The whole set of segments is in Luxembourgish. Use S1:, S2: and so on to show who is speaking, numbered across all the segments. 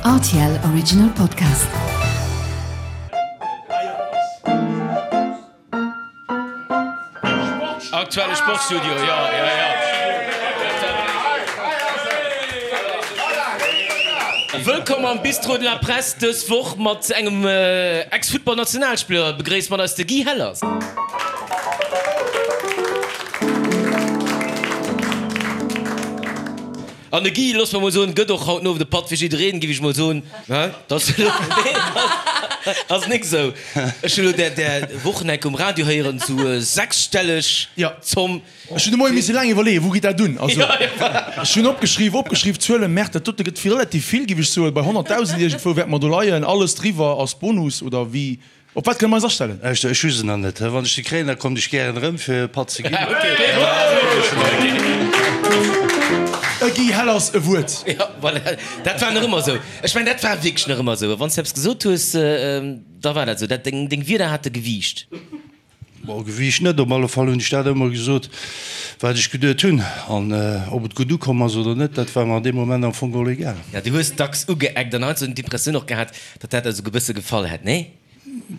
S1: Rtl Original Podcast.
S2: Aktuelle Sportstudio, jo, jo, jo. Wëllkomm am Bistrot de la Presse, dës Woch mat engem Ex-Futtball-Nationalspiller. Begréisst mat eis de Guy Hellers. An de Guy, loosse mer mol soen, gëtt och haut den Owend e Patt fir jiddereen, giff ech mol soen. Dat ass nik esou. Ech hunn elo där där Wochen enk um Radio héieren, sou sechsstelleg Zomm.
S3: Ech hunn de Moie misse laang iwwerleeën, wou geet dat un? Also, ech hunn opgeschriww, opgeschriww, Zuelen, Merde, dat dote gëtt relativ vill, giff ech soen. Bei 100.000 iergendwou wäerte mer do leien. Alles driwwer ass Bonus, oder wéi? Op wat kënne mer eis astellen?
S4: Lauschter, ech hu se nach net. Wann ech se kréien, da kommt ech gären erëm, fir e Patt ze ginn.
S3: E Guy Hellers e Wuert.
S2: Jo, voilà, dat war nach ëmmer esou. Ech mengen, dat war wierklech nach ëmmer esou. Wann s de eppes gesot hues, da war dat esou. Dat, deng, deng Wierder hate Gewiicht.
S4: Bon, Gewiicht net, op alle Fall hunn ech dat ëmmer gesot, wat ech geduet hunn. An ob et gutt ukomm ass oder net, dat war mer an deem Moment am Fong geholl egal.
S2: Ja, du hues dacks ugeeckt an heiansdo hunn d'Impressioun och gehat, datt dat der esou e bësse gefall hätt, nee?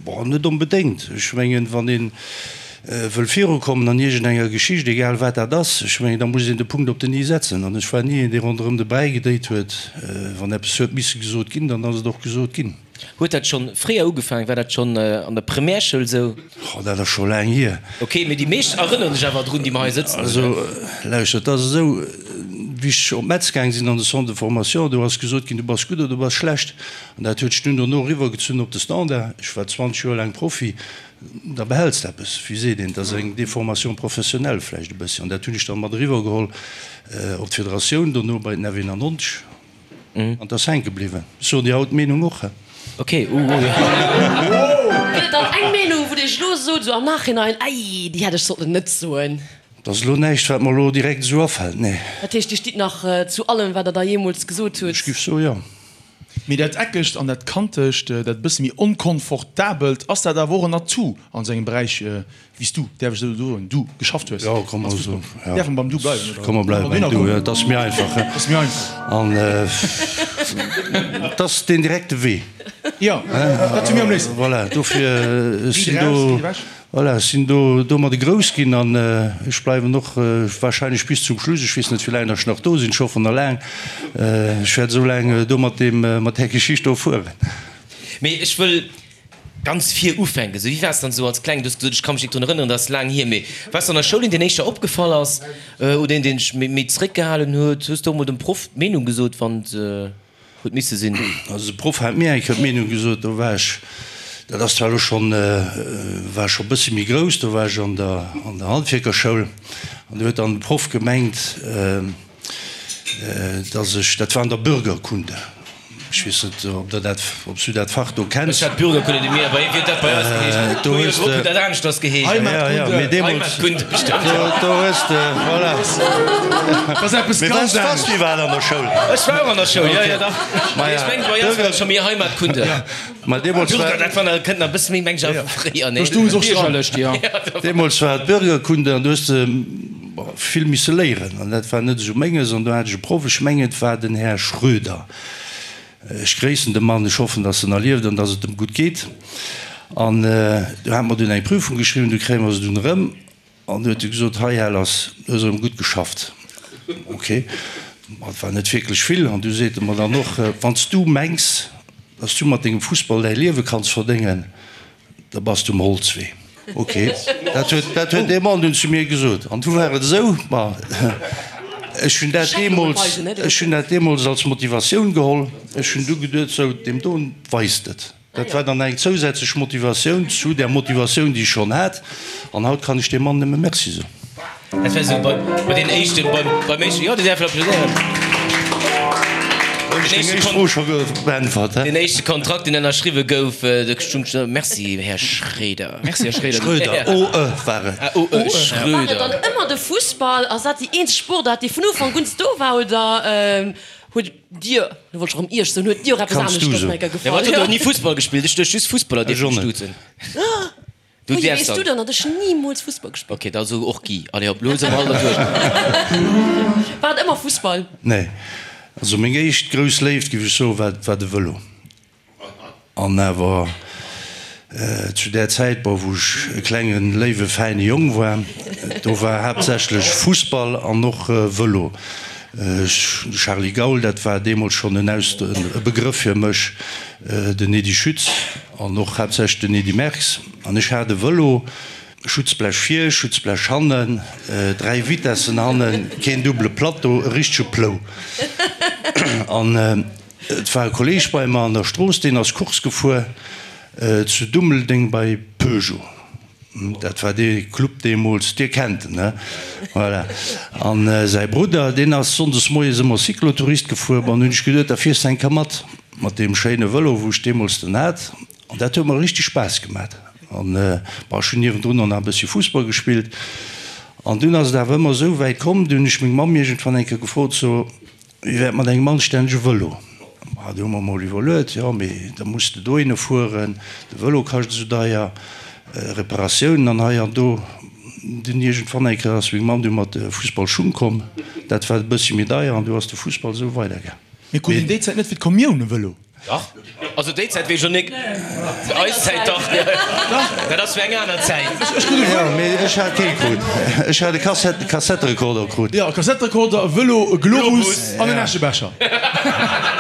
S4: Bon, net onbedéngt. Ech mengen, wann ee wëll virukommen an iergendenger Geschicht, egal wat dat ass, ech mengen, da muss een de Punkt op den i setzen. An ech war ni een, dee ronderëm de Bräi gedréit huet. Wann eppes huet misse gesot ginn, dann ass et och gesot ginn.
S2: Huet dat schonn fréier ugefaangen? War dat schonn an der Primärschoul esou?
S4: Oh, dat ass scho laang hier.
S2: Ok, mee déi meescht erënneren sech awer drun, déi mer hei sëtzen.
S4: Also, lauschtert, et ass esou, wéi ech op Metz gaang sinn an de Centre de formation, do ass gesot ginn, du bass gutt oder du bass schlecht. An dat huet sech dunn dono eriwwergezunn op de Standard. Ech war 20 Joer laang Profi, da behäls de eppes, wéi seet een, et ass eng Déformation professionnelle vläicht e bëssi. An dat hunn ech dann mat eriwwergeholl op d'Federatioun, dono bei den F91. An 't ass hänke bliwwen. Ech soen dir haut d'Meenung och.
S2: Ok, uh uh.
S5: Gëtt et dann eng Meenung, wou dir iech elo sot, esou am Nachhinein, Ei, déi hätt ech sollten net soen?
S4: Et ass elo näischt, wat mer elo direkt esou afält, nee.
S5: Dat heescht, Dir stitt nach zu allem, wat der da jeemools gesot hutt?
S4: Ech giff soe jo.
S3: Mee dat Eckegt an dat Kantegt, dat e bësse méi Onkonfortabelt, ass dat awer och en Atout an esou engem Beräich wéi s du, däerf ech esou soen, du geschafft hues?
S4: Jo, komm mer esou,
S3: jo. Däerf mer beim Du bleiwen,
S4: oder? Komm mer bleiwe beim Du, jo, et ass méi einfach, he?
S3: Ass méi einfach.
S4: An et ass deen direkte Wee.
S3: Jo, dat hu mir am léifsten.
S4: Voilà, dofir, ech sinn do, voilà, ech sinn do domadde grouss ginn an ech bleiwen och wahrscheinlech bis zum Schluss. Ech weess net, wéi laang datt ech nach do sinn, ech hoffen nach laang. Ech wäert esou laang do mat deem, mat där Geschicht do fueren.
S2: Mee ech wëll Ganz vir ufänken, sou wéi waars dann sou als Klengen? Du hues gesot, ech ka mech nik drun erënneren, dat ass laang hier, mee waars du an der Schoul een, deen éischter opgefall ass oder een, deen sech méi zeréckgehalen huet? Hues du och mol dem Proff d'Meenung gesot, wann et huet misse sinn?
S4: Also de Proff hat mir eng Kéier d'Meenung gesot, do war ech, dat ass zwar elo schonn, war ech scho e bëssi méi grouss, do war ech an der an der Handwierkerschoul an do huet dann de Proff gemengt, dass ech, dat war an der Bürgerkunde, ech weess net, ob Der dat, ob s du dat Fach do kenns.
S2: Ech hat Bürgerkunde, déi mir, wéi huet dat bei eis geheescht?
S4: Do hues de.
S2: Huet dat aneschters geheescht?
S4: Heimatkunde. Mee deemools.
S2: Heimatkunde, bestimmt.
S4: Do, do hues de, voilà.
S3: Dat ass eppes
S4: Mee
S3: ganz
S4: waars, waars
S3: anescht.
S4: du iwwerhaapt an der Schoul?
S2: Ech war och an der Schoul, jo, jo, dach.
S4: Maja,
S2: Mee ech mengen, bei eis war et scho méi Heimatkunde.
S4: Ma deemools war.
S2: Bürger, dat war nach, kënnt nach e bësse méi, meng ech, awer vu fréier, nee?
S3: Do stoung se och dran.
S6: Biergerlech, jo.
S4: Deemools war et Bürgerkunde an do hues de vill misse léieren an dat war net esou menges an do hat ech e Proff, ech mengen et war den Här Schröder, ech gréissen de Mann, ech hoffen, datt en nach lieft an datt et em gutt geet an do hate mer dunn eng Prüfung geschriwwen, du kréie mer se dunn erëm an du huet e gesot, hei Här Lass, du hues erëm gutt geschafft. Ok, ma et war net wierklech vill an du seet e mer dann och, wann s du mengs, datt s du mat dengem Fussball däi Liewe kanns verdéngen, Da bass du um Holzwee. Ok, dat huet, dat huet dee Mann dunn zu mir gesot. An du war et esou, ma ech hunn dat deemools, ech hunn dat deemools als Motivatioun geholl. Ech hunn du geduet, sou, deem doen weist et. Dat war dann eng zousätzlech Motivatioun zu där Motivatioun, déi ech schonn hat. An haut kann ech deem Mann nëmme Merci soen.
S2: Dat war sou bei, bei den éischten, beim, beim éischten, jo, Dir däerft applaudéieren.
S4: Hunn ech deng éischt Fro scho beäntwert, hä?
S2: Den éischte Kontrakt, deen ënnerschriwwe gouf, do stung scho, Merci, Här Schréder.
S6: Merci, Här Schréder.
S4: Schröder, o e war et.
S2: Ah, o e, Schröder.
S5: War et dann ëmmer de Fussball? Ass dat déi eenzeg Sportaart, déi vun Ufank un do war, oder huet Dir, lo wollt ech erëm Iech soen, huet Dir och eppes
S4: Kanns du
S5: aneschters
S4: soen.
S5: nach
S2: Ja,
S5: gefall?
S2: ma et huet och ni Fussball gespillt. Ech duecht just Fussballer
S4: Ech
S2: dierfen
S4: och net.
S2: duzen. Du
S5: Wéi
S2: däerfs
S5: weess du
S2: dann.
S5: dann, datt ech nimools Fussball gespillt
S2: Ok, da so och Guy. Allez hop, lo si mer all derduerch.
S5: War et ëmmer Fussball?
S4: Nee. Also meng éischt grouss Léift, géif ech soen, war war de Vëlo. An awer zu där Zäit, bon, wou ech e klengen, léiwe, fäine Jong war, do war haaptsächlech Fussball an och Vëlo. De Charly Gaul, dat war deemools schonn en Aus, e Begrëff fir mech, den Edy Schütz an och haaptsächlech den Edy Merckx. An ech hat e Vëlo, Schutzblech vir, Schutzblech hannen, 3 Vitessen hannen, keen double Plateau, e richtege Plou. An et war e Kolleeg bei mer an der Strooss, deen ass Course gefuer zu Dummeldeng bei Peugeot. Dat war dee Club deemools, Dir kennt en, he? Voilà. An säi Brudder, deen ass sonndes moies ëmmer Cyclotourist gefuer. Bon, hunn ech geduet, da fiers de eng Kéier mat, mat deem schéine Vëlo, wou ech deemools den hat. An dat huet mer richteg Spaass gemat. An bon, ech hunn niewendrun och nach e bëssche Fussball gespillt. An dunn ass et awer ëmmer esou wäit komm, du hunn ech meng Mamm iergendwann eng Kéier gefrot, so, wéi wär et mat engem anstännege Vëlo? Ma du hu mer mol iwwerluet, jo, mee da muss de dohinne fueren, de Vëlo kascht esou deier, Reparatiounen an hei an do. Dunn iergendwann eng Kéier ass meng Mamm du mat de Fussballschung komm, dat war e bëssche méi deier an du ass de Fussball esou weidergaang.
S3: Mee krut een déi Zäit net fir d'Kommioun e Vëlo?
S2: Dach, also déi Zäit weess ech och nik, eis Zäit dach, dat ass fir eng aner Zäit.
S4: Jo, mee ech hat kee krut. Ech hat e Kassetterekorder krut.
S3: Jo, e Kassetterekorder, e Vëlo, e Globus an en Äschebecher.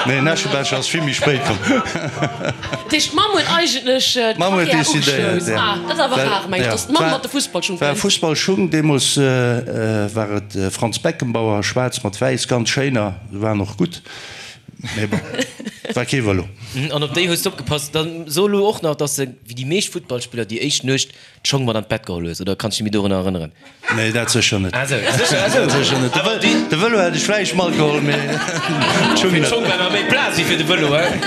S4: Nee, en Äschebecher ass vill méi spéit komm.
S5: Dat heescht, d'Mamm huet eigentlech
S4: d'Karriär
S5: ugeschloss. Ah, dat ass awer rar, meng ech, datt d'Mamm mat de Fussballschung
S4: kënnt. War Fussballschung, deemools war et Franz Beckenbauer, schwaarz mat wäiss, ganz schéiner, se waren och gutt. Mee bon, war kee Vëlo.
S2: An op déi hues de opgepasst. Dann so elo och nach, dass de, wéi déi meescht Futtballspiller, déi éischt Nuecht d'Schong mat an d'Bett geholl hues, oder kanns du dech méi dorunner erënneren?
S4: Nee, dat sécher net.
S2: Ah sou, sécher, ah sou.
S4: Dat sécher net.
S2: Awer déi.
S4: De Vëlo hätt ech vläicht matgeholl, mee d'Schung
S2: Fir
S4: net.
S2: d'Schong war nach méi Plaz wéi fir de Vëlo, hein?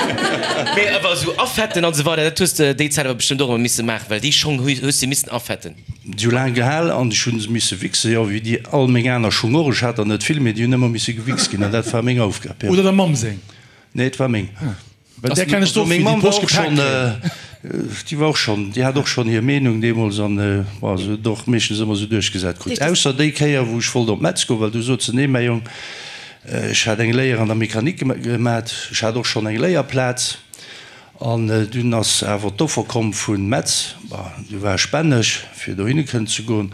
S2: Mee awer esou afetten an esou weider, dat hues de déi Zäit awer bestëmmt och ëmmer misse maachen, well déi Schong hues de missen afetten.
S4: Si hu laang gehal an ech hu se misse wichsen, jo, wéi déi all meng aner Schung och. Ech hat der net vill, mee déi hunn ëmmer misse gewichst ginn an dat war meng Aufgab, jo.
S3: Oder der Mamm seng?
S4: Nee, et war meng.
S3: Well där kennen ech
S4: Also
S3: och,
S4: meng
S3: wéi déi
S4: Mamm war
S3: Posch
S4: och
S3: gepaakt
S4: schonn,
S3: kréien.
S4: déi war och schonn, déi hat och schonn hir Meenung deemools an, bon, se huet et och meeschtens ëmmer esou duerchgesat krut. Ausser déi Kéier, wou ech wollt op Metz goen, well du sot se, Nee, mäi Jong, ech hat eng Léier an der Mechanik gemat, ech hat och schonn eng Léierplaz. An dunn ass awer d'Offer komm vu Metz, bon, du war ech bänneg, fir dohinne kënnen ze goen.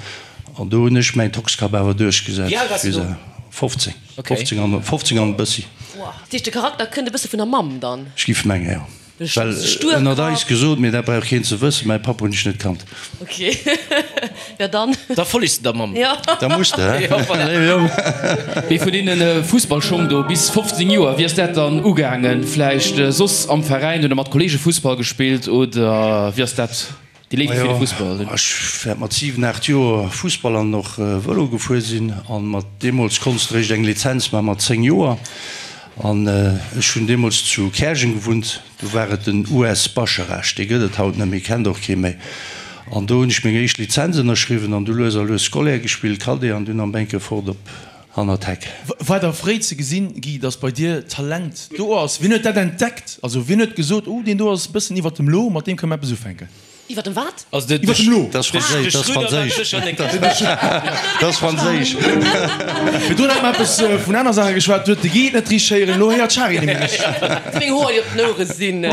S4: An do hunn ech mäin Toxkapp awer duerchgesat.
S2: Wéi al waars du do?
S4: 15, 15 an, 15 an e bëssi.
S5: Dat heescht, de Charakter kënnt e bësse vun der Mamm dann?
S4: Ech giff mengen, jo. Well, ënnert eis gesot, mee dat brauch keen ze wëssen, mäi Papp hunn ech net kannt.
S5: Ok, ja dann.
S2: Da follegs de der Mamm.
S5: Jo.
S4: Da muss de, he?
S2: Jo, voilà.
S4: Léiwe Jong.
S6: Mee vun deene Fussballschong do bis 15 Joer, wéi ass dat dann ugaangen? Vläicht soss am Veräin oder mat Kollege Fussball gespillt oder wéi ass dat déi Léift fir de Fussball?
S4: Majo, ech wäert mat 7, 8 Joer Fussball an och Vëlo gefuer sinn an mat deemools konns de réischt eng Lizenz maache mat 10 Joer an ech hunn deemools zu Käerjeng gewunnt. Do war et den US Bascharage, dee gëtt et haut net méi, kennt och kee méi. An do hunn ech meng éischt Lizenz ënnerschriwwen an du lues a lues Scolaire gespillt, Cadet an dunn am Bänke fort op hannert d'Heck.
S3: War da fréi ze gesinn, Guy, dass bei dir Talent do ass? Wien huet dat entdeckt? Also wien huet gesot, oh deen do ass e bëssen iwwert dem Lo, mat deem kënne mer eppes ufänken?
S5: Iwwer dem wat?
S2: Also de,
S3: Iwwer dem Lo.
S4: Dat ass franséisch, dat ass franséisch. Dat ass franséisch.
S3: Virdrun hat mer eppes vun aner Saache geschwat, do huet de Guy et net richteg héieren, elo héiert d'Shari et nemmi richteg.
S5: Meng Hoer, déi op den Ouere sinn.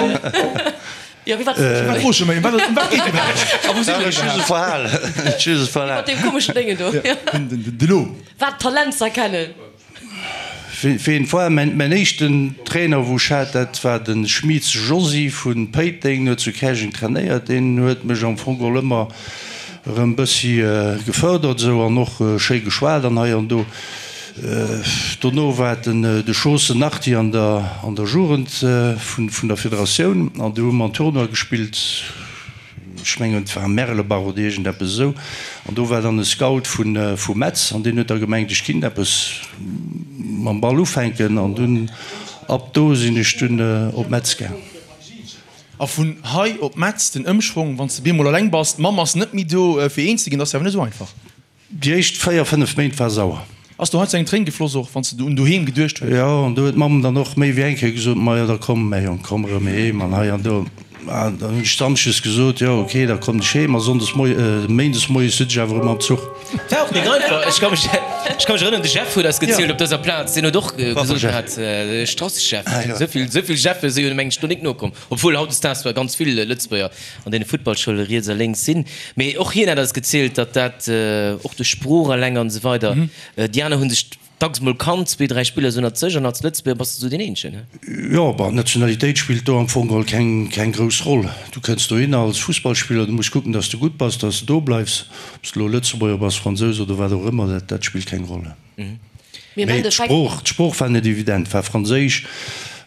S5: Jo, wéi war
S3: Wat froe ech mech, ëm wat ëm wat geet iwwerhaapt?
S2: A wou si mer
S4: Ech hu se
S2: iwwerhaapt?
S4: verhal. Ech hu se verhal.
S5: Mat deem komeschen Déngen do.
S3: De Lo.
S5: Wat Talent ze erkennen.
S4: Ween war mäin éischten Trainer wou ech hat, dat war de Schmieds Josy vu Péiteng, huet zu Käerjeng trainéiert. Deen huet mech am Fong geholl ëmmer erëm bëssi gefërdert esou an och schéi geschwat an hei an do. Dono war et den de Schoossen Arti an der an der Jugend vun der Federatioun an do hu mer en Tournoi gespillt. Ech mengen et war Merlebach oder iergend eppes esou, an do war dann e Scout vu Metz an deen huet da gemengt ech kinnt eppes mam Ball ufänken an dunn ab do sinn ech dunn op Metz gaang.
S3: A vun hei op Metz den Ëmschwong, wann s de bemol eleng bass, d'Mamm ass net méi do fir eens ze ginn, dat ass jo awer net esou einfach.
S4: Déi éischt 4, 5 Méint war sauer.
S3: Ass do heiansdo eng Tréin gefloss och wann s de un doheem geduecht hues?
S4: Jo, an do huet d'Mamm dann och méi wéi eng Kéier gesot, Majo da komm mäi Jong, komm erëm heem an hei an do. An dann hunn ech samschdes gesot, jo ok, da kommen ech heem a sonndes moie, méindes moies sëtz ech awer erëm am Zuch.
S2: War och nik einfach. Ech ka mech, ech ka mech erënneren, de Jeff huet eis gezielt op dëser Plaz, deen huet och gesot gehat, Strassechef, esou vill, esou vill Jeffe si jo mengen ech do nik nokomm, obwuel hautdesdaags zwar ganz vill Lëtzebuerger an deene Futtballschoule riets a lénks sinn, mee och hien hat eis gezielt, datt dat och duerch Sprooch eleng an esou weider, déi aner hu sech Dacks mol kannt, zwee, dräi Spiller sou ënnert sech an als Lëtzebuerger bass de sou deen eenzegen, he?
S4: Jo, bon, d'Nationalitéit spillt do am Fong geholl keng, keng grouss Roll. Du kënns dohinner als Fussballspiller, du muss kucken, dass de gutt bass, dass de do bleifs. Ob s de elo Lëtzebuerger bass, Fransous oder wat och ëmmer, dat, dat spillt keng Roll.
S5: Mee am
S4: Mee
S5: Endeffekt.
S4: d'Sprooch, d'Sprooch war net evident, war Franséisch.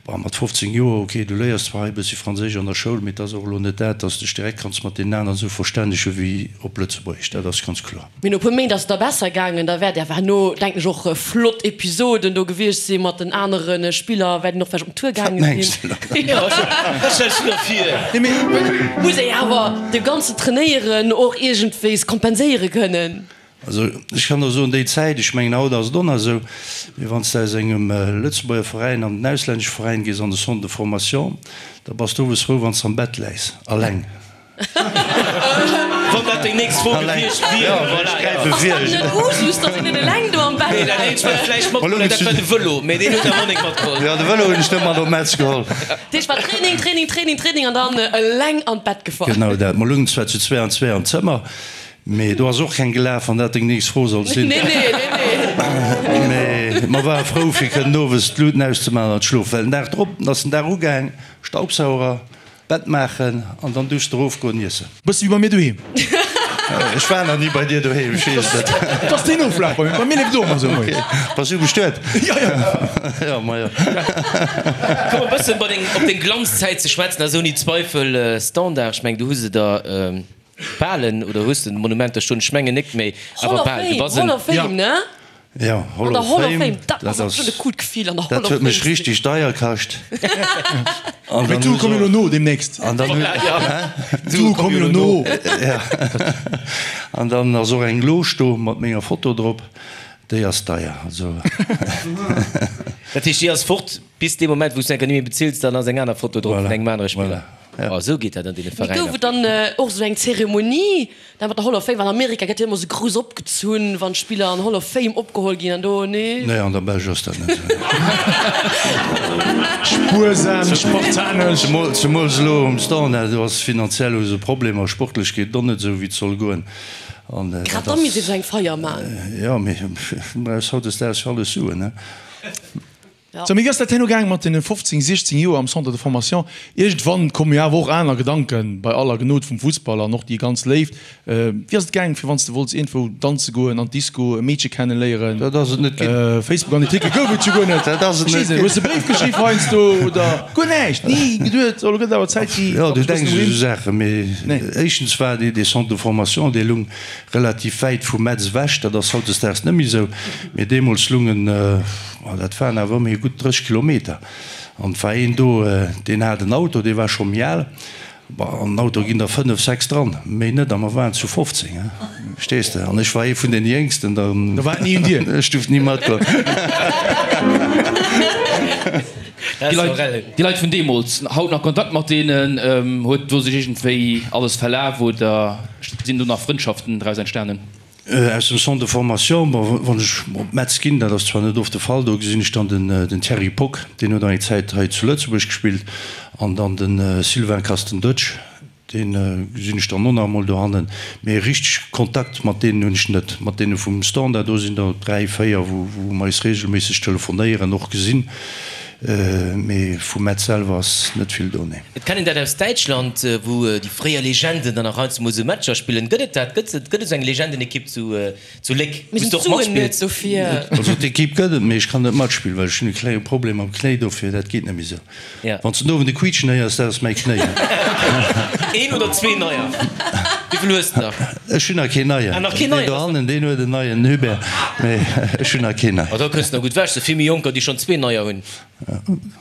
S4: Bon, mat 15 Joer, ok, du léiers zwar hei e bëssi Franséisch an der Schoul, mee et ass och elo net dat, dass de dech direkt kanns mat deenen aneren esou verstännege wéi op Lëtzebuergesch, dat ass ganz kloer.
S5: Mee no e puer Méint ass et da besser gaangen. Da wäert awer herno, denken ech, och flott Episoden do gewiescht si mat den anere Spiller, wäert een och vläicht op den Tour gaange sinn. Muss ee awer de ganzen Trainéieren och iergendwéis kompenséiere kënnen.
S4: Also ech kann der soen, déi Zäit, ech mengen haut ass et och nach esou, mee wann s de aus engem Lëtzebuerger Veräin an den auslännesche Veräin gees an de Centre de formation, da bass de owes frou, wann s de am Bett läis, alleng.
S2: Wann dat deng nächst Fro gewiescht wier, voilà, jo.
S5: Ass dat net Usus, datt een net eleng do am Bett
S2: Nee, dat eenzegt, wat vläicht matgeholl huet, dat war de Vëlo, mee deen huet der Monique matgeholl.
S4: Jo, de Vëlo hunn ech net mat op Metz geholl.
S5: Dat heescht, war Training, Training, Training, Training an dann eleng an d'Bett gefall.
S4: Genau dat. Mer lungen zwar zu zwee an zwee am Zëmmer, Mee do ass och keng gelaf, wann dat deng nächst Fro soll sinn.
S5: Nee, nee, nee, nee.
S4: Mee mer ware frou, fir kënnen owes d'Luten auszemaachen an d'schlofen. Well den Dag drop ass den Dag ugaang, Staubsauger, Bett maachen an dann duerst erofgoen iessen.
S3: Bësse wéi bei mir doheem.
S4: Ech war nach ni bei dir doheem, ech weess et net.
S3: Et ass deen Oflaf bei mir. Bei mir leeft et och ëmmer esou moies.
S4: Ok. Bass du bestuet?
S3: Jo, jo.
S4: Jo, ma jo.
S2: Komm e bëssen bei deng, op deng Glanzzäit ze schwätzen, ass ouni Zweifel Standard. Ech meng, du hues se der. Balen oder hues de Monumenter stoen? Ech mengen nik, méi
S5: awer
S2: bal. Du bass en.
S5: Hall of Fame, ne?
S4: Jo, Hall
S5: An der
S4: of
S5: Hall of
S4: Fame,
S5: Fame, dat
S4: dat
S5: ass
S4: ass,
S5: schon e coolt Gefill an der Hall
S4: dat
S5: of
S4: huet
S5: Fame
S4: mech
S5: ze sinn.
S4: richtig deier kascht. An
S3: Mee
S4: dann
S3: d'Sue
S4: hu
S3: komme
S4: se
S3: jo elo no deemnächst.
S4: An dann hu,
S2: Voilà,
S4: hä?
S3: D'Sue komme jo elo no.
S4: Ja. An dann ass och eng Loge do mat menger Foto drop, déi ass deier, also.
S2: Dat heescht, déi ass fort bis dee Moment, wou s du enker ni méi bezills, dann ass eng aner Foto drop vun
S4: Voilà,
S2: engem anere Spiller.
S4: voilà. Ja.
S2: Oh, esou geet dat an deene
S5: Mee
S2: Veräiner.
S5: gouf et dann och esou eng Zeremonie da mat der Hall of Fame? Well an Amerika gëtt jo ëmmer esou grouss opgezunn, wann d'Spiller an Hall of Fame opgeholl ginn an do, nee?
S4: Nee, an der Belsch ass dat net esou.
S3: Spuersam, spartanesch.
S4: Zemools elo um Standard, do ass finanziell hu se Problemer, sportlech geet et och net esou wéi et soll goen. An dat
S5: Grad da
S4: ass.
S5: misst ee sou eng Feier man.
S4: Jo, mee du brauchs hautdesdaags fir alles Suen, ne?
S3: Sou, mee wéi ass dat herno gaang mat deene 15, 16 Joer am Centre de formation? Iergendwann komme jo awer och aner Gedanken, bei aller Gnod vum Fussball an och déi ganz Léift. Wéi ass et gaang, fir wann s de wollts iergendwou danze goen, an d'Disco, e Meedche kenneléieren?
S4: Dat ass et net ginn.
S3: Facebook an Artikel gouf et jo guer net.
S4: Dat ass et net ginn.
S3: Hues de Bréif geschriww heiansdo oder guer näischt? Ni geduet, oh lo gëtt et awer Zäit, déi.
S4: Jo, du denks u sou Saachen, mee éischtens war dee Centre de formation, dee lung relativ wäit vu Metz ewech, dat ass hautdesdaags net méi esou, mee deemools lung en, Ma dat waren awer ëmmerhi gutt 30 Kilometer. An et war een do, deen hat en Auto, dee war scho méi al. Bon, an den Auto ginn der fënnef, sechs dran, méi net. A mer waren zu 15, he, verstees de? An ech war ee vun den Jéngsten, da.
S3: Da war et ni un dir.
S4: Ech duerft ni matgoen.
S6: Déi Leit, déi Leit vun deemools, haut nach Kontakt mat deenen? Huet do sech iergendwéi alles verlaf oder sinn do nach Frëndschaften draus entstanen?
S4: Aus dem Centre de formation, bon, wann ech op Metz ginn, dat ass zwar net oft de Fall, do gesinn ech dann den Thierry Pock, deen huet eng Zäit hei zu Lëtzebuerg gespillt, an dann de Sylvain Kastendutsch, dee gesinn ech dann och nach emol dohannen. Mee richteg Kontakt mat deenen hunn ech net. Mat deene vum Standard, do sinn der 3, 4, wou mer eis reegelméisseg telefonéieren, och gesinn. Mee vu Metz selwer ass net vill do, nee.
S2: Et kennt een dat aus Däitschland, wou déi fréier Legenden dann nach heiansdo mol esou Matcher spillen. Gëtt et dat? Gëtt et esou eng Legendenekipp zu Léck,
S5: Mir
S2: wou s
S5: sinn
S2: du och
S5: d'Suen net
S2: matspills?
S5: dofir.
S4: Also d'Ekipp gëtt et, mee ech kann net matspillen, well ech hunn e klenge Problem mam Knéi, dofir dat geet net méi esou. Wann s de den Owend e Quiitschen héiers, dat ass mäi Knéi.
S2: Een oder zwee neier? Wéivill hues de nach?
S4: Ech hunn nach keen neien.
S2: Ah, nach keen neien?
S4: Deen dohannen, deen huet en neien, Hubert, mee ech hunn nach keen neien.
S2: Oh, da kënns de nach gutt ewech. Sou vill méi Jonker, déi schonn zwee neier hunn.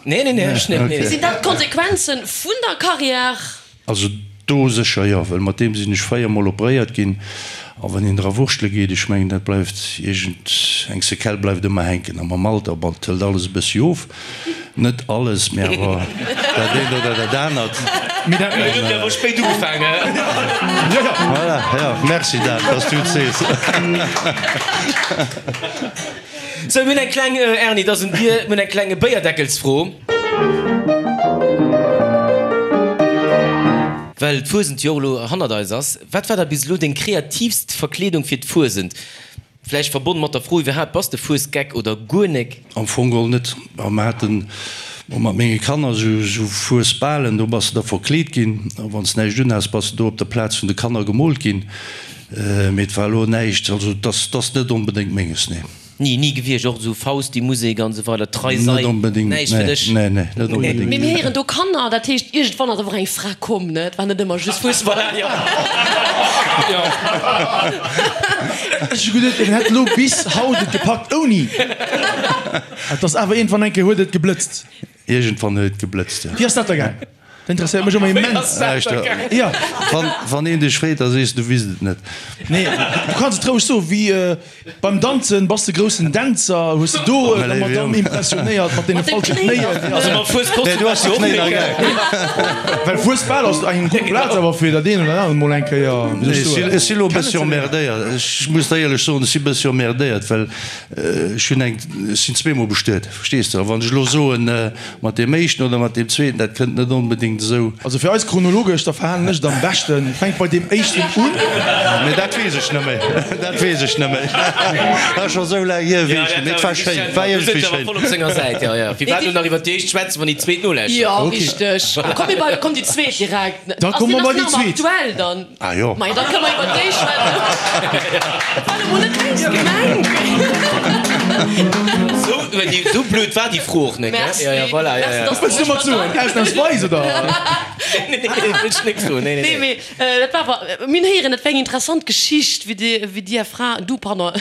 S2: Nee, nee, nee, ech net, nee.
S5: Sinn dat d'Konsequenzen vun der Carrière?
S4: Also do sécher jo, well mat deem sinn ech 4 mol operéiert ginn. A wann een dra wurschtele geet, ech mengen dat bleift iergend eng Séquelle bleift ëmmer hänken. A mam Alter, bon, et hëlt alles e bëssi of, net alles, mee awer dat eent oder dat anert.
S3: Mee dat.
S2: Mir hunn awer spéit ugefaangen.
S3: Jo, jo.
S4: Voilà, jo, merci Dan, dass du et sees.
S2: Sou, mir hunn eng kleng, Erni, et ass un dir, mir hunn eng kleng Béierdeckelsfro. Well d'Fuesent jo och elo hannert eis ass, wat war da bis elo deng kreatiivst Verkleedung fir d'Fuesent? Vläicht verbonne mat der Fro iwwerhaapt, Bass de Fuesgeck oder guer nek?
S4: Am Fong geholl net. Ma mer haten och mat menge Kanner esou Fuesbalen, do bass de da verkleet ginn a wann s näischt unhas, bass de do op der Plaz vun de Kanner gemoolt ginn. Mee et war elo näischt, also et ass net onbedéngt menges, nee.
S2: Ni, ni gewiescht, och esou Fausti-Musek an esou weider, Trei Sei,
S4: Net onbedéngt,
S2: näischt fir
S4: nee,
S2: dech?
S4: nee, nee, net onbedéngt.
S5: Mee mir héieren do Kanner, dat heescht iergendwann ass awer och eng Fra komm, ne? Et war net ëmmer just Fussball.
S3: Ech hu geduet, en hätt elo bis haut et gepackt ouni. Et ass awer iergendwann eng Kéier huet et geblëtzt.
S4: Iergendwann huet et geblëtzt, jo.
S3: Wéi ass dat da gaang? Dat interesséiert mech ëmmer immens.
S4: Jo. Wann een dech freet, da sees du, wisst et net.
S3: Nee, du kanns et roueg soen. Wéi beim Danzen, bass de groussen Dänzer? Hues de do der Madamm impressionéiert mat deene falsche Knéien?
S2: Also mam Fueskostüm
S4: Nee, du has de Knéien nach gär.
S3: Well Fuesbal ass eng gutt Plaz awer fir dat een oder anert mol eng Kéier, wéi soll ech soen.
S4: Ech si lo e bëssi emmerdéiert. Ech muss der éierlech soen, ech si e bëssi emmerdéiert, well ech hunn eng, ech sinn zweemol bestuet, verstees de? A wann ech elo soen, Mat deem éischten oder mat deem zweeten, dat kënnt net onbedéngt esou.
S3: Also fir eis chronologesch, da verhalen ech et am beschten, fänk bei deem éischten un.
S4: Mee dat weess ech net méi, dat weess ech net méi. Dat ass scho esou laang hier, weess ech net méi. Et war schéin, et war iergendwéi schéin.
S2: Voll op senger Säit, jo, jo. Firwat elo nach iwwer déi éischt schwätzen, wann déi zweet nolauschtert?
S5: Jo, richteg. Komm mir bei, komm déi zweet direkt.
S3: Da komme mer bei déi zweet.
S5: Ass déi nach ëmmer aktuell dann?
S4: Ah jo.
S5: Majo, da kënne mer iwwer déi schwätzen. War elo mol net béis gemengt.
S2: Sou, sou blöd war déi Fro och net,
S5: Merci.
S2: Ja, ja, voilà, ja, ja.
S5: Merci, dass
S3: Wëlls du mat soen? Ausnahmsweis, oder?
S2: Nee, nee, nee, wëll ech nik soen. Nee, nee,
S5: Nee,
S2: nee.
S5: mee dat war awer, mir hunn héieren, et wär eng interessant Geschicht, wéi dir, wéi dir är Fra, du, pardon,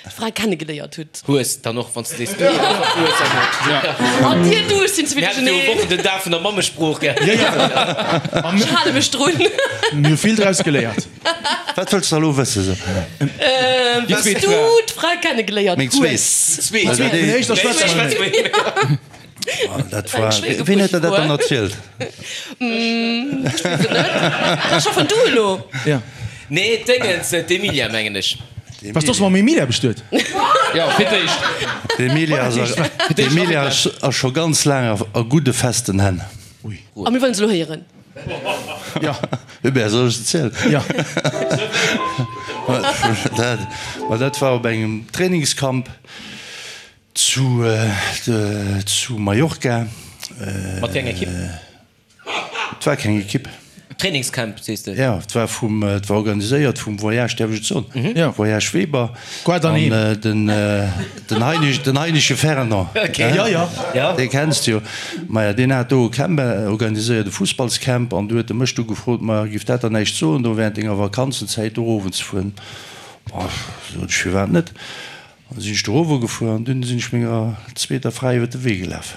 S5: d'Fra kennegeléiert hutt.
S2: Hues dann och, wann s de sees du, du hues dann och.
S5: An dir, du, ech sinn ze vill
S2: Mir haten jo
S5: duercherneen.
S2: Wochen den Dag vun der Mammesprooch, gell?
S3: Ja, ja.
S5: Ech hale mech drun.
S3: Mir hu vill draus geléiert.
S4: Wat wëlls de elo wëssen? So.
S5: Wéi s du d'Fra kennegeléiert
S4: Meng zweet.
S5: hues.
S2: Zweet.
S4: Also déi.
S3: Vun der éischter schwätze mer net méi.
S4: Dat war, ween huet der dat dann erzielt?
S5: Ech weess et net. Ech hoffen du elo.
S3: Ja.
S2: Nee, d'Déngens, d'Emilia mengen ech.
S3: Bass du och mam Emilia bestuet?
S6: Jo, fir d'éischt.
S4: D'Emilia ass, d'Emilia ass scho ganz laang a gudde festen Hänn.
S5: A mir wëllen se elo héieren.
S3: Ja.
S4: Hubert, soll ech et zielen?
S3: Ja.
S4: Dat, ma dat war op engem Trainingscamp zu, zu Mallorca.
S2: Mat wéi enger Ekipp?
S4: Et war keng Ekipp.
S2: Trainingscamp sees de?
S4: Jo, et war vum, et war organiséiert vum Voyage, däerf ech et soen?
S3: Jo.
S4: Voyage Weber.
S3: Guarda
S4: An
S3: Neem.
S4: den, den Heinisch, den Heinische Fernand.
S2: Okay.
S3: Jo, jo.
S2: Ja.
S4: Dee kenns de jo. Maja, deen hat do e Camp organiséiert, e Fussballscamp, an du huet e mech du gefrot, ma giff dat der näischt soen, do während denger Vakanzenzäit do erowen ze fueren? Boah, sot ech, firwat net? An da sinn ech do erowe gefuer an dunn sinn ech menger zweeter Fra iwwer de Wee gelaf.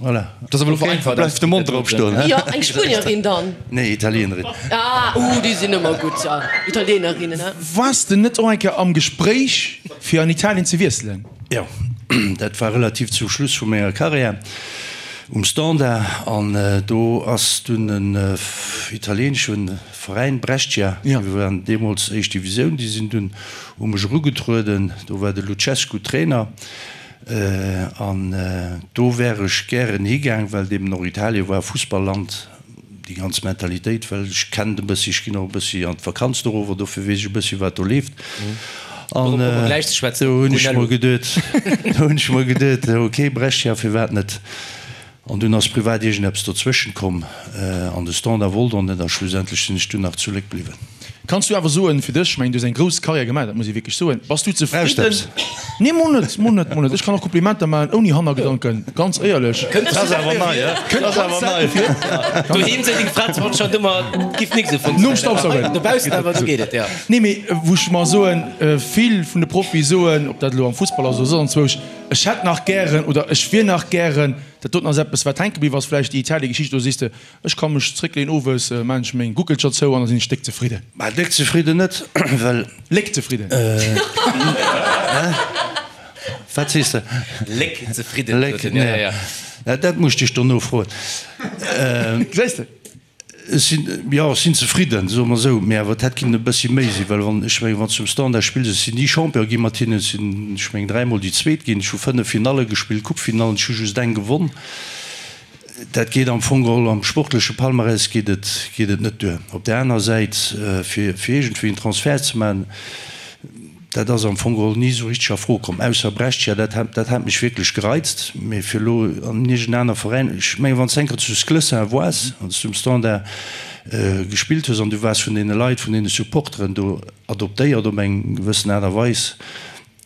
S4: Voilà.
S6: Dat ass awer elo vereinfacht.
S4: Bleift de Mond drop stoen, he?
S5: Jo, eng Spuenierin dann?
S4: Nee, Italienerin.
S5: Ah, uh, déi sinn ëmmer gutt, ja, Italienerinnen, he?
S3: Waars de net och eng Kéier am Gespréich fir an Italien ze wiesselen?
S4: Jo, dat war relativ zum Schluss vu menger Karriär um Standard an do ass dunn en italienesche Veräin, Brescia, déi waren deemools éischt Divisioun, déi sinn dunn u mech erugetrueden, do war de Lucescu Trainer. An do wär ech gären higaang, well et eben och Italien war, Fussballand, déi ganz Mentalitéit, well ech kennen et e bëssi, ech ginn och e bëssi an d'Vakanz dorower, dofir weess ech e bëssi wat do leeft. An do hunn ech mer geduet, do hunn ech mer geduet, ok Brescia, firwat net? An dunn ass privat iergendeppes dozwëschent komm an de Standard wollt och net a schlussendlech sinn ech dunn nach zu Léck bliwwen.
S3: Kanns du awer soen fir dech, ech mengen du hues eng grouss Karriär gemaach, dat muss ee wierklech soen, bass du
S4: Brauchst
S3: zefridden?
S4: eppes?
S3: Nee, mol net, mol net, mol net. Ech kann och Komplimenter maachen ouni Hannergedanken, ganz éierlech.
S4: Dat ass awer nei, he?
S3: Kënnt
S4: Dat ass
S3: ganz
S4: awer nei.
S3: selten vir.
S2: Doheem seet deng Fra zwar anscheinend ëmmer, et giff nik esou
S3: Nom
S2: funktionéieren,
S3: Staubsaugen.
S2: awer dobaussen awer, do geet et, jo.
S3: Nee, mee wou ech mer soen, vill vun de Profie soen, ob dat elo am Fussball ass oder soss anzwousch, Ech hätt nach gären oder ech wier nach gären, dat doten ass eppes wat hänke bliww ass, vläicht déi Italiegeschicht, do sees de, ech ka mech zréckleeën owes, maan ech meng Guckelcher zou an da sinn ech déck zefridden.
S4: Bah, déck zefridden net, well.
S3: Léck zefridden.
S4: Hä? Wat sees de?
S2: Léck zefridden,
S4: Léck,
S2: sot en, ja, ja, ja.
S4: Dat muss ech dech dono froen.
S3: Gesäis de?
S4: Ech sinn, jo, ech sinn zefridden, soe mer esou, mee awer et hätt kinnen e bëssi méi sinn, well wann, ech mengen, wann s du um Standard spills, ech sinn ni Champion gi mat hinnen, ech sinn, ech mengen, dräimol déi Zweet ginn, ech hu 5 Finalle gespillt, Coupefinallen, ech hu just eng gewonn. Dat geet am Fong geholl, am sportleche Palmarès geet et, geet et net duer. Op där aner Säit, fir, fir iergendwéi en Transfert ze maachen, Dat ass am Fong geholl ni esou richteg a Fro komm, ausser Brescia, dat hat, dat hat mech wierklech gereizt. Mee fir elo an iergend aner Veräin, ech mengen, wann s de eng Kéier zu Sclessin woars, wann s du um Standard gespillt hues an du waars vun deene Leit, vun deene Supporteren do adoptéiert op eng gewëssen Aart a Weis,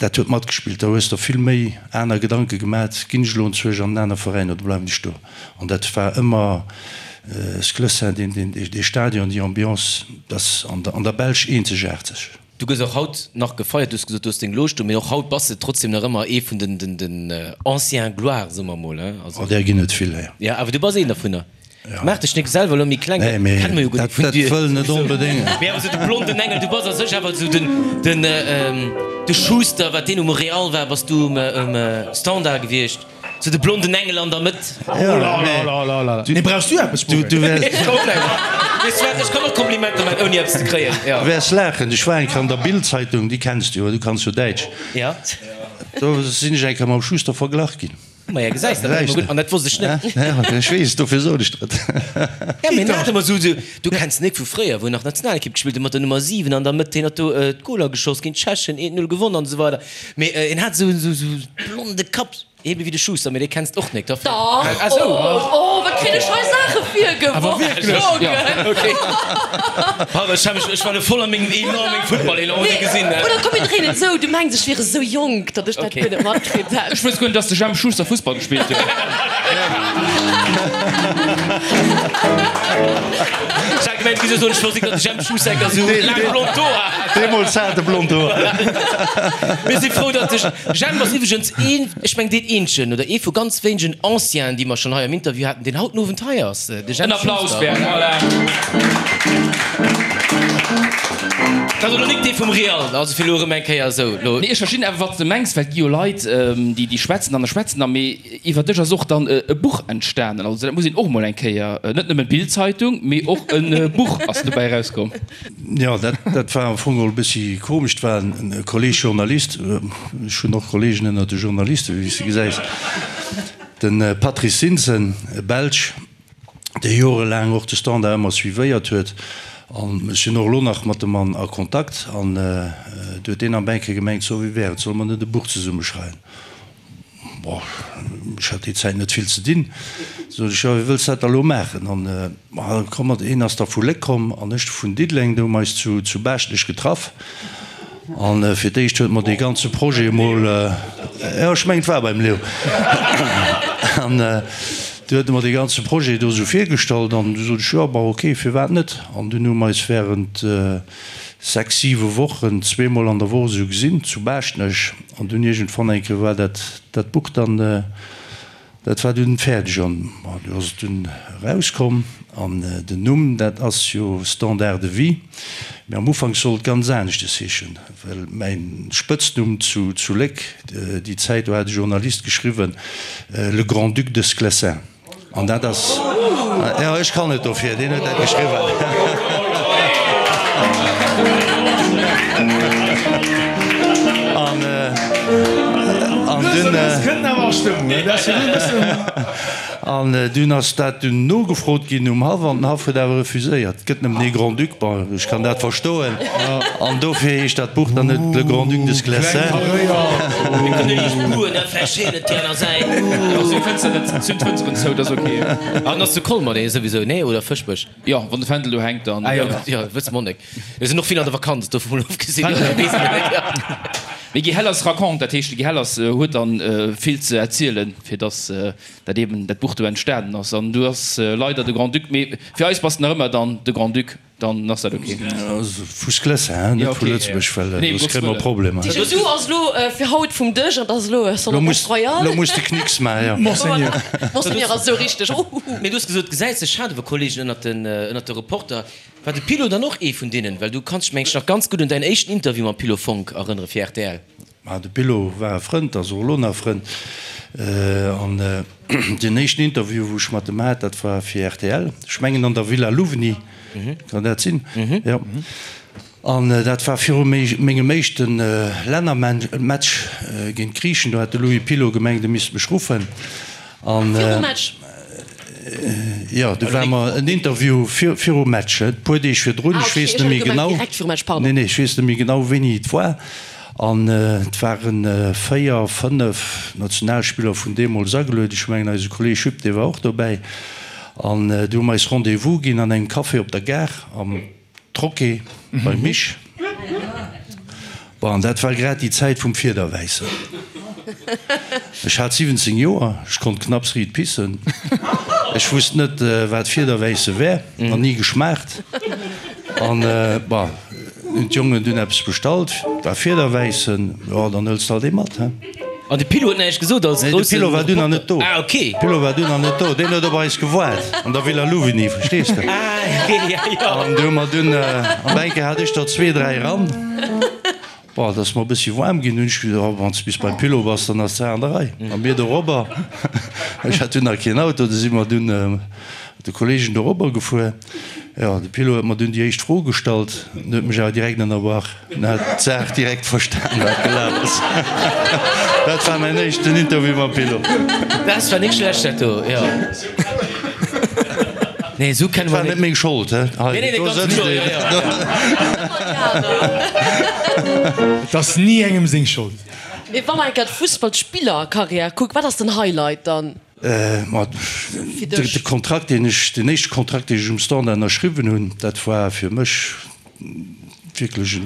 S4: dat huet matgespillt. Da hues der vill méi aner Gedanke gemat, ginn ech elo enzwousch an en aner Veräin oder bleiwen ech do? An dat war ëmmer Sclessin, deen, deen, dee Stadion, déi Ambiance, dat ass an der, an der Belsch eenzegaarteg.
S2: Du gëss och haut nach gefeiert, du hues gesot, du hues deng Loge do, mee och haut bass de trotzdem nach ëmmer ee vun den den anciens gloires, soe mer mol, hein.
S4: Also. Oh, där ginn et vill, jo.
S2: Jo, awer du bass een dervunner. Maach dech nik selwer elo méi kleng,
S4: dat kenne mer jo guer nik vun dir. Dat wëll net onbedéngt.
S2: Mee awer sou de blonden Engel, du bass a sech awer sou den den de Schuster, wat deen um Real war, bass du um Standard gewiescht. Sou de blonden Engel an der Mëtt.
S3: Nee, brauchs du eppes,
S4: Bouwe? Du wäers.
S2: Weess du wat, ech kann och Komplimenter man, ouni eppes ze kréien.
S4: Du wäers laachen, ech war eng Kéier an der Bild-Zeitung, déi kenns du jo, du kanns jo Däitsch.
S2: Ja.
S4: Do sinn ech eng Kéier mam Schuster verglach ginn.
S2: Maja, gesäis de, dat gutt, an dat wosst ech net.
S4: Ja, ech weess, dofir sot ech der et.
S2: Ja, mee net ëmmer sou, du kenns den Nick vu fréier, wou en nach Nationalekipp gespillt huet mat der Nummer 7 an der Mëtt, hien huet do d'Goler geschoss géint d'Tschechen, 1-0 gewonn an esou weider. Mee en hat sou esou blonde Kapp. Ebe wéi de Schuster, mee dee kenns d'och nek.
S5: Dach! Oh, oh, wat kritt ech hei Saache virgeworf!
S2: Pardon, ech hat mech, ech war lo voll a mengem Elan, mengem Futtball-Elan, huet ee gesinn, ne?
S5: Oder komm mir dréinen et esou, du mengs ech wier esou jonk, datt ech dat guer net matkritt hätt.
S6: Ech wosst guer net, dass de Jemp Schuster Fussball gespillt huet.
S2: Ech hat gemengt, du géifs soen, ech wosst nik, datt de Jemp Schuster enker esou laang blond Hoer hat.
S4: Deemools hat e blond Hoer.
S2: Mir si frou, datt de Jemp ass iwwregens een, ech mengen deen eenzegen oder ee vu ganz wéinegen Ancienen, déi mer schonn hei am Interview haten, deen haut den Owend hei ass, de
S6: Jemp
S2: Schuster.
S6: En Applaus, Bernd, voilà.
S2: Dat ass elo nik dee vum Real, also fir elo erëm eng Kéier esou elo.
S6: Nee, ech verstinn awer, wat s de mengs, well et gi jo Leit, déi, déi schwätzen an a schwätzen a mee iwwer dech ass och dann e Buch entstanen. Also dat muss een och mol eng Kéier, net nëmmen d'Bild-Zeitung, mee och e Buch ass dobäi erauskomm.
S4: Jo, dat, dat war am Fong och e bëssi komesch. Et war en Kolleg Journalist, ech hunn och Kollegen ënner de Journalisten, wéi s de gesäis, de Patrice Zinsen, e Belsch, dee jorelaang och de Standard ëmmer suivéiert huet. An ech sinn och elo nach mat dem Mann a Kontakt. An du huet deen am Bänke gemengt, So, wéi wär et, solle mer net e Buch zesumme schreiwen? Bon, ech hat déi Zäit net vill ze dinn. Sot ech, jo, wéi wëlls dat da lo maachen? An, ma komm mat, een ass da vu Léck komm an ech vun Diddeleng, do hu mer eis zu, zu Baaschtnech getraff. An fir d'éischt huet mer dee ganze Projet emol, jo, ech mengen, et war beim Leo. An du huet e mer dee ganze Projet do esou virgestallt an du sot ech, jo, bon, ok, firwat net? An dunn hu mer eis während sechs, siwe Wochen zweemol an der Woch esou gesinn zu Baaschtnech. An dunn iergendwann eng Kéier war dat, dat Buch dann, dat war dunn fäerdeg an du ass et dunn erauskomm. An den Numm, dat ass jo Standard de vie, mee am Ufank sollt et ganz aneschtes heeschen, well mäin Spëtznumm zu, zu Léck déi Zäit, do hat e Journalist geschriwwen, Le Grand-Duc de Sclessin. An dat ass, jo, ech kann net dofir, deen huet dat geschriwwen. An, an dunn, an dunn ass dat dunn nogefrot ginn um Haff an den Haff huet awer refuséiert, et gëtt nëmmen ee Grand-Duc. Bon, ech kann dat verstoen. An dofir heescht dat Buch dann net Le Grand-Duc de Sclessin.
S2: An ass zu Colmer dee souwisou, nee? Oder Fëschbech?
S6: Jo, wann de Fändel do hänkt, dann.
S2: Ah jo, jo, wësse mer nek. Mir sinn och vill an der Vakanz, dovun mol ofgesinn.
S6: Mee Guy Hellers raconte, dat heescht de Guy Hellers huet dann vill ze erzielen, fir dass dat eben dat Buch do entstanen ass. An du ass leider de Grand-Duc, mee fir eis bass de nach ëmmer dann de Grand-Duc, dann ass dat ok.
S4: Vu Sclessin, hein, net vu Lëtzebuerg, well soss kréie mer Problemer.
S5: Du ass elo fir haut vum Dësch an ass elo Son Altesse Royale.
S4: Lo muss de Knicks maachen, jo.
S3: Monseigneur.
S5: Monseigneur ass esou richteg, uhuhu.
S2: Mee du hues gesot, gesäis sech schade wa Kollegen ënnert den, ënnert de Reporter. War de Pilo dann och ee vun deenen? Well du kanns dech, meng ech, nach ganz gutt un däin éischten Interview mam Pilo Fonck erënnere fir rtl.
S4: Ma de Pilo war e Frënd, ass och elo nach e Frënd. An deen éischten Interview, wou ech mat em hat, dat war fir rtl, ech mengen an der Villa Louvigny, kann dat sinn? Jo. An dat war viru mengem éischte Lännermatch géint d'Griichen. Do hat de Louis Pilot gemengt, e misst mech ruffen. An
S5: Virum Match?
S4: Jo, do war mer en Interview virum Match, e puer Deeg virdrun.
S5: Ah,
S4: Ech
S5: okay,
S4: weess
S5: ech
S4: net
S5: hat
S4: méi
S5: gemengt
S4: genau.
S5: direkt virum Match, pardon.
S4: Nee, nee, ech weess net méi genau, wéini et war. An et ware véier, fënnef Nationalspiller vun deemools agelueden. Ech mengen, eise Kolleeg Jupp, dee war och dobäi. An du hu mer eis Rendez-vous ginn an engem Café op der Gare am. Troquet beim Mich. Bon, an dat war grad déi Zäit vum Fiederwäissen. Ech hat 17 Joer, ech konnt knapps riit pissen. Ech wusst net, wat Fiederwäisse wär, nach ni geschmaacht. An, bon, hunn d'Jongen dunn eppes bestallt, war Fiederwäissen, jo, dann hëls de alt ee mat, he.
S2: An de Pilo huet näischt gesot als
S4: Nee, de
S2: groussen
S4: Pilo war dunn nach net do.
S2: Ah, okay.
S4: De Pilo war dunn nach net do. Deen huet op eis gewaart an der Villa Louvigny, verstees de?
S2: Ah, okay, ja, ja.
S4: An du hu mer dunn, an eng Kéier hat ech der zwee, dräi eran. Bon, et ass mer e bëssi waarm ginn. Hunn ech gesot, oh, wann s de bis beim Pilo bass, dann ass d'Saach an der Rei. A mir dorobber, ech hat dunn nach keen Auto, du si mer dunn mat de Kollegen dorobber gefuer. Jo, de Pilo huet mer dunn déi éischt Fro gestallt, en huet mech awer direkt ënnerbrach. En hat d'Saach direkt verstan, wat gelaf ass. Dat war mäin éischten Interview mam Pilo.
S2: Dat war nik schlecht, dat do, jo. Nee, esou kenne
S4: Dat
S2: mer
S4: war net meng Schold, he.
S2: Nee, nee,
S4: Do
S2: ganz
S4: sëtzt
S2: kloer,
S4: een.
S2: jo, jo.
S3: Et ass ni engem seng Schold.
S5: Mee wa mer eng Kéier d'Fussballspillerkarriär kucken, wat ass den Highlight dann?
S4: Ma de Kontrakt, deen ech, deen éischte Kontrakt, deen ech um Standard ënnerschriwwen hunn, dat war fir mech wierklech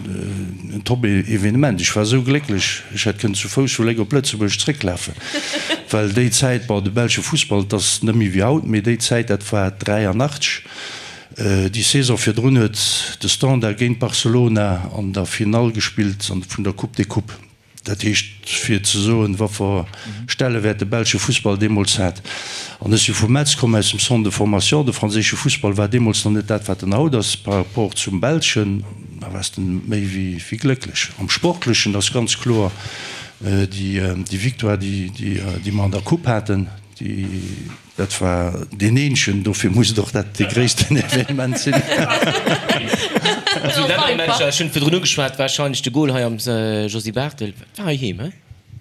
S4: en Top-Evenement. Ech war esou glécklech, ech hätt kënnen zu Fouss vu Léck op Lëtzebuerg zrécklafen, well déi Zäit, bon, de belsche Fussball, et ass net méi wéi haut, mee déi Zäit, dat war 83, déi Saison virdrun huet de Standard géint Barcelona an der Finall gespillt vun der Coupe des Coupes. Dat heescht, fir ze soen, wat Stellewäert de belsche Fussball deemools hat. An ech si vu Metz komm, aus dem Centre de formation. De franséische Fussball war deemools nach net dat, wat en haut ass par rapport zum belschen. Da waars de méi wéi glécklech. Am Sportlechen ass ganz kloer déi Victoire, déi mer an der Coupe haten, déi. Dat war deen eenzegen, dofir muss et och dat dee gréissten Evenement sinn.
S2: Also Lännermatcher, ech hunn virdrun ugeschwat, warscheinlech de Gol hei am Josy Barthel, war heiheem, he?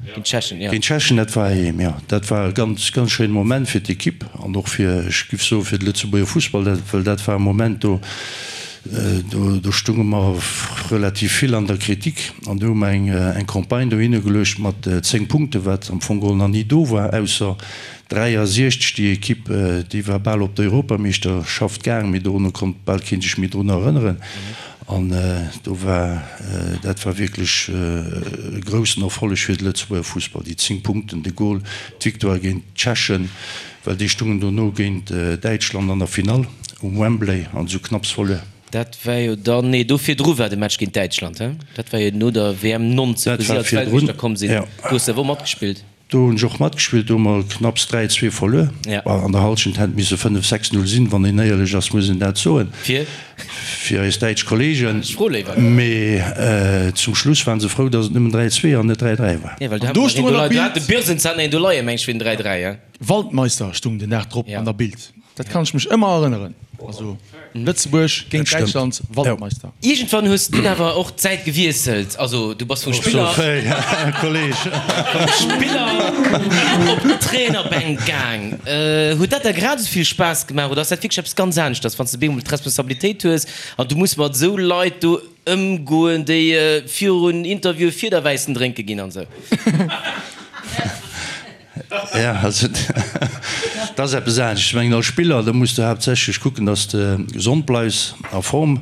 S2: Géint d'Tschechen, jo.
S4: Géint d'Tschechen, dat war heiheem, jo. Dat war e ganz, ganz schéine Moment fir d'Ekipp an och fir, ech giff soen, fir de Lëtzebuerger Fussball, dat, well dat war e Moment, do, do, do stunge mer relativ vill an der Kritik an do hu mer eng, eng Campagne dohinner geluecht mat 10 Punkten, wat am Fong geholl nach ni do war, ausser 63, déi Ekipp, déi war bal op d'Europameeschterschaft gaang, mee dono konnt bal kee sech méi drun erënneren. An do war, dat war wierklech e groussen Erfolleg fir de Lëtzebuerger Fussball, déi 10 Punkten, de Gol, d'Victoire géint d'Tschechen, well déi stungen dono géint Däitschland an der Finall um Wembley an esou knapps verluer.
S2: Dat war jo dann, nee, do virdru war de Match géint Däitschland, he? Dat war jo no der WM 90,
S4: Dat
S2: wou si
S4: war
S2: als
S4: virdrun,
S2: Weltmeeschter komm sinn.
S4: jo.
S2: Do hues de awer och matgespillt.
S4: Do hunn ech och matgespillt, do hu mer knapps 3, 2 verluer.
S2: Ja.
S4: An der Halschent hätt misse 5, 6, 0 sinn, wann een éierlech ass, muss een dat soen.
S2: Fir?
S4: Fir eis däitsch Kollegen.
S2: Ech froe léiwer.
S4: Mee zum Schluss waren se frou, datt et nëmmen 3, 2 an net 3, 3 war.
S2: Ja, well do
S3: An do
S2: hat
S3: stung
S2: mer
S3: an
S2: een
S3: der
S2: do hat
S3: Bild.
S2: de Birsens hat een do leien, meng ech, fir den 3, 3, ja.
S3: Waldmeister stung den Dag drop
S2: Ja.
S3: an der Bild. Dat kann ech mech ëmmer erënneren. Also Lëtzebuerg géint Däitschland, Waldmeister.
S2: Iergendwann hues du dunn awer och d'Säit gewiesselt. Also du bass vum Spiller, vum Spiller op d'Trainerbänk gaang. Huet dat der grad esou vill Spaass gemaach oder ass dat wierklech eppes ganz aneschters, wann s de bemol d'Responsabilitéit hues an du muss mat esou Leit do ëmgoen, déi virun Interviewe Fiederwäissen drénke ginn an esou?
S4: Ja, also dat ass eppes anescht. Ech mengen als Spiller, da muss de haaptsächlech kucken, datt s de gesond bleifs, a Form.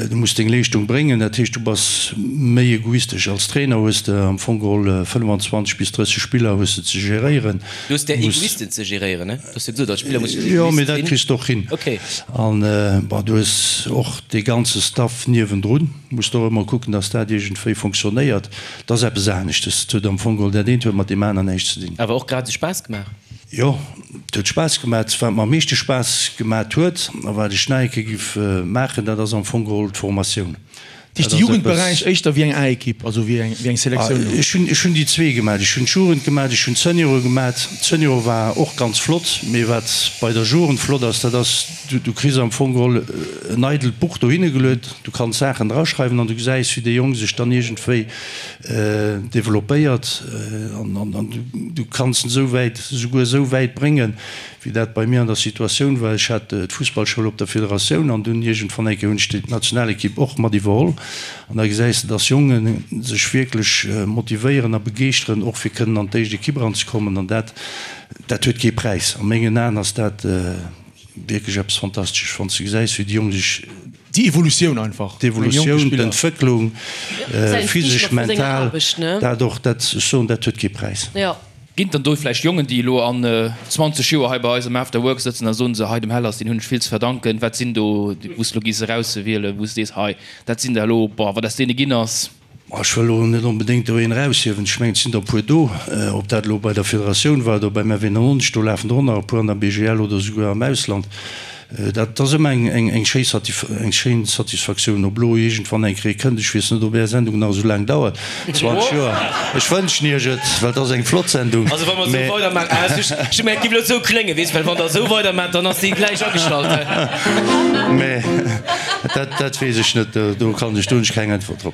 S4: Du muss deng Leeschtung bréngen. Dat heescht, du bass méi egoistesch. Als Trainer hues de am Fong geholl 25 bis 30 Spiller hues de ze geréieren.
S2: Du hues där Egoisten ze geréieren, ne? Du hues jo gesot, als Spiller muss de
S4: Jo,
S2: Egoist
S4: mee dat
S2: sinn.
S4: kriss de och hin.
S2: Okay.
S4: An bon, du hues och dee ganze Staff niewendrun. Muss de och ëmmer kucken, datt dat iergendwéi fonctionnéiert. Dat ass eppes aneschtes. Et huet am Fong geholl, dat eent huet mat deem aneren näischt ze dinn.
S2: Awer och grad esou Spaass gemaach?
S4: Jo, et huet Spaass gemaat. Wat mer am meeschte Spaass gemaat huet a wat ech nach eng Kéier giff maachen, dat ass am Fong geholl d'Formatioun.
S3: Dat heescht de Jugendberäich éischter wéi eng A-Ekipp, also wéi eng, wéi eng Selektioun
S4: do? Ech hunn, ech hunn déi zwee gemaat. Ech hunn d'Jugend gemaat, ech hunn d'Seniore gemaat. D'Seniore war och ganz flott, mee wat bei der Jugend flott ass, dat ass, du, du kriss am Fong geholl en eidelt Buch dohinne geluet, du kanns Saachen draschreiwen an du gesäis, wéi dee Jong sech dann iergendwéi developpéiert an, an, an du, du kanns en esou wäit, esouguer esou wäit bréngen, Wéi dat bei mir an der Situatioun war, ech hat d'Fussballschoul op der Federatioun an dunn iergendwann eng Kéier hunn ech d'Nationalekipp och mat iwwerholl an da gesäis de, dass Jonge sech wierklech motivéieren a begeeschteren, och fir kënnen an d'éischt Ekipp eranzekommen an dat, dat huet kee Präis. A mengen Aen ass dat wierklech eppes Fantastesches, wann s de gesäis, wéi déi Jong sech.
S3: Déi Evolutioun einfach.
S4: D'Evolutioun, d'Entwécklung, physesch, mental, dat och, dat, ech soen, dat huet kee Präis.
S6: Ginn et dann do vläicht Jongen, déi elo an 20 Joer hei bei eis am After Work sëtzen a soen se, hei dem Hellers, deen hunn ech vill ze verdanken, wat sinn do, wou s de elo giss erauswielen, wou s de sees, hei dat sinn der elo, boah, wat aus deene ginn ass?
S4: Ech wëll elo net onbedéngt do een eraushiewen. Ech mengen, et sinn der e puer do, ob dat elo bei der Federatioun war oder beim FE99, do lafen der och nach e puer an der BGL oder esouguer am Ausland. Dat ass ëmmer eng schéin Satisfaktioun, ob elo iergendwann eng Kéier kënnt. Ech weess net, ob Är Sendung nach esou laang dauert, 20 Joer. Ech wënschen Iech et, well et ass eng flott Sendung.
S2: Also wa mer esou weidermaachen, ah ech hu gemengt, et géif elo esou kléngen, weess, well wann Der esou weidermaacht, dann ass déi gläich agestallt.
S4: Mä dat weess ech net, do kann ech, do hunn ech keng Äntwert drop.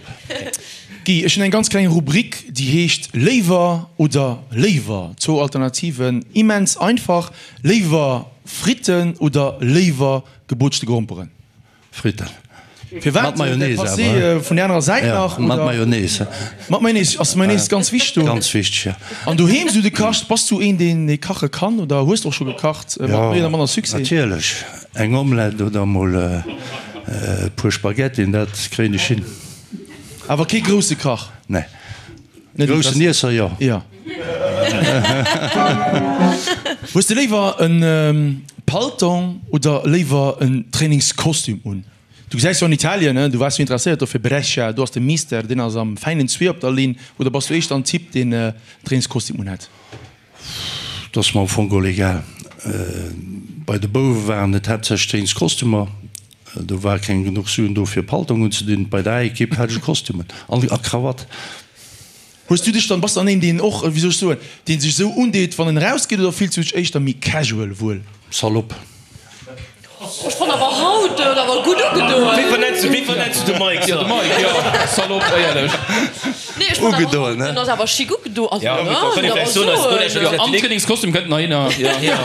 S3: Guy, ech hunn eng ganz kleng Rubrik, déi heescht Léiwer oder léiwer. Zwou Alternativen, immens einfach. Léiwer Fritten oder léiwer gebootschte Gromperen?
S4: Fritten.
S3: Firwat?
S4: Mat Mayonnaise
S3: Dat Passé
S4: awer.
S3: vun der anerer Säit nach?
S4: Ja, mat
S3: oder?
S4: Mayonnaise.
S3: Mat Mayonnaise, ass Mayonnaise ganz wichteg do?
S4: Ganz wichteg, ja.
S3: An doheem sou de kacht, bass du een deen dee kache kann oder hues de och scho gekacht mat méi oder manner Succès?
S4: Natierlech, eng Omelette oder mol e puer Spaghettien, dat kréien ech hin.
S3: Awer kee grousse Kach?
S4: Nee. Groussen Iesser, jo.
S3: Jo. Hues de léiwer en Paltong oder léiwer en Trainingskostüm un? Du gesäis jo an Italien, du waars jo interesséiert do fir Brescia, do ass de Mister, deen ass am fäinen Zwee op der Linn, oder bass du éischter en Typ, deen Trainingskostüm unhätt?
S4: Et ass mer am Fong geholl egal. Bei de Bouwe waren et haaptsächlech Trainingskostümer, do war keng genuch Suen do fir Paltong unzedinn. Bei der A-Ekipp hat ech e Kostüm un a Krawatt.
S3: Hues du dech dann, bass dann een deen och, wéi soll ech soen, deen sech esou undeet wann en erausgeet oder fills du dech éischter méi casual wuel?
S4: Salopp.
S5: Ech fann awer haut huet awer gutt ugedoen.
S2: Wéi vernenns du, wéi vernenns du de Mike?
S6: Jo, de Mike, jo, Salopp, éierlech.
S5: Nee, ech fann awer
S4: Ugedoen,
S5: haut,
S4: ne?
S5: den ass awer chic ugedo, also,
S2: Ja,
S5: ne,
S2: kann ee vläicht soen, eis
S6: Jo, am Trainingskostüm kënnt nach hinner, jo.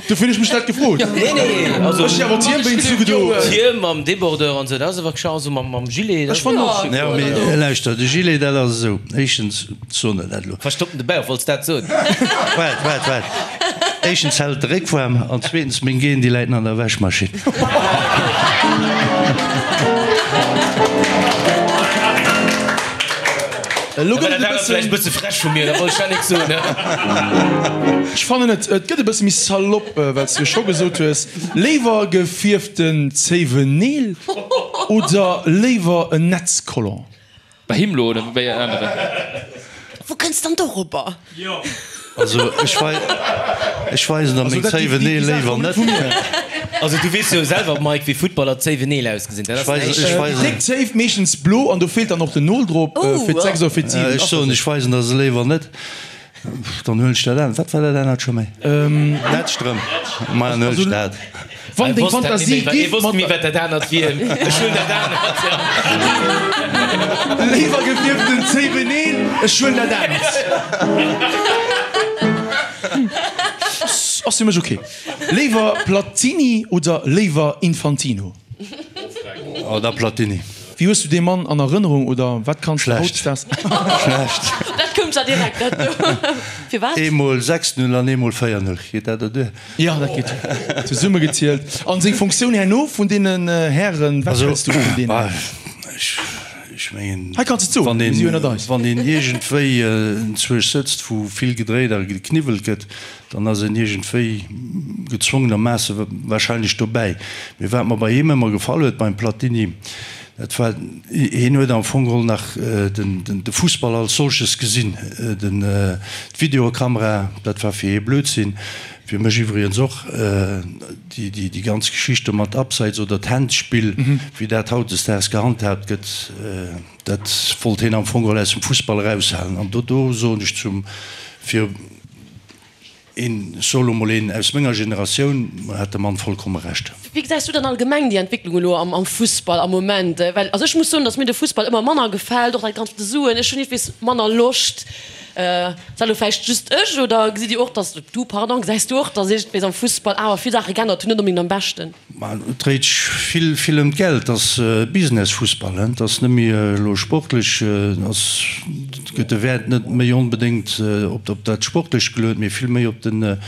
S3: Dofir hunn ech mech dat gefrot.
S2: Nee, nee, also.
S3: Ech si awer d'Hiem wéinst ugedo.
S2: D'Hiem mam Débordeur an esou, dat ass awer scho, also mam, mam Gilet, dat
S3: Ech fannen och chic.
S4: Jo, mee lauschter, de Gilet, dat ass esou, éischtens, soen der dat elo.
S2: Verstoppen de Bauch, wollts dat soen?
S4: Waart, waart, waart. Éischtens hält de Réck waarm an zweetens meng Genen, déi läiten an der Wäschmaschinn.
S3: Elo gëtt et e
S2: Dat ass vläicht e
S3: bëssen.
S2: bësse frech vu mir, da wollt ech dat nik soen.
S3: Ech fannen et, et gëtt e bësse méi salopp, well s de jo scho gesot hues, léiwer gefierften Zéiwenneel oder léiwer en Netzcollant?
S6: Bei him lo oder bei aneren?
S5: Wou kënns dann dorobber?
S4: Also ech wei ech weisen der meng Zéiwenneel léiwer net.
S2: Also du weess jo selwer Mike wéi Footballer Zéiwenneel ausgesinn. Dat ass näischt.
S4: Ech weisen.
S3: Déi déck Zéif, meeschtens blo an do feelt dann och den Nol drop fir d'Sechs oder fir d'Siwen.
S4: Ech soen ech weisen der se léiwer net. Dann huelen ech dat anert. Wat war dat anert scho méi? Netzstrëmp. Ma dann huelen ech dat.
S3: Wann deng Fantasie
S2: giff mat. Méi wat dat anert wier. Ech huelen dat anert.
S3: Léiwer gefierften Zéiweneel, ech huelen dat anert. Ass fir mech ok. Léiwer Platini oder léiwer Infantino?
S4: Oh, da Platini.
S3: Wéi hues du dee Mann an Erënnerung oder wat kanns du hautdesdaags.
S4: Schlecht.
S5: Dat koum zwar direkt, dat do. Firwat?
S4: Eemol 6, 0 an eemol 4, 0. Geet dat der duer?
S3: Jo, dat geet duer. Zesummegezielt. An seng Funktioun herno vun deenen Hären, wat häls du vun deenen?
S4: Ech mengen,
S3: Hei kanns de et soen, mir si jo ënnert eis.
S4: wann een iergendwéi enzwousch sëtzt, wou vill gedréit a gekniwwelt gëtt, Dann ass een iergendwéi gezwongenermaasse wahrscheinlech dobäi. Mee wat mer bei him ëmmer gefall huet, beim Platini, dat war, hien huet am Fong geholl nach de Fussball als solches gesinn. D'Videokamera, dat war fir hie Blödsinn. Fir mech iwwregens och déi ganz Geschicht do mat Abseits oder d'Handspill, wéi dat hautdesdaags gehandhaabt gëtt, dat wollt hien am Fong geholl aus dem Fussball eraushalen. An do do soen ech zum, fir een, ech soe lo mol een aus menger Generatioun, hat de Mann vollkomme Recht.
S5: Wéi gesäis du dann allgemeng déi Entwécklung elo am Fussball am Moment? Well also ech muss soen, datt mir de Fussball ëmmer manner gefält, och dat Ganzt mat de Suen. Ech hunn iergendwees manner Loscht. Ass dat elo vläicht just ech oder gesitt Dir och, datt, du, pardon, gesäis du och, datt iergendwees am Fussball awer vill Saache geännert hunn, net onbedéngt am Beschten?
S4: Ma et dréit sech vill, vill ëm d'Geld. Et ass Business-Fussball, et ass net méi elo sportlech, ass, gëtt de Wäert net méi onbedéngt op dat Sportlecht geluet, mee vill méi op den,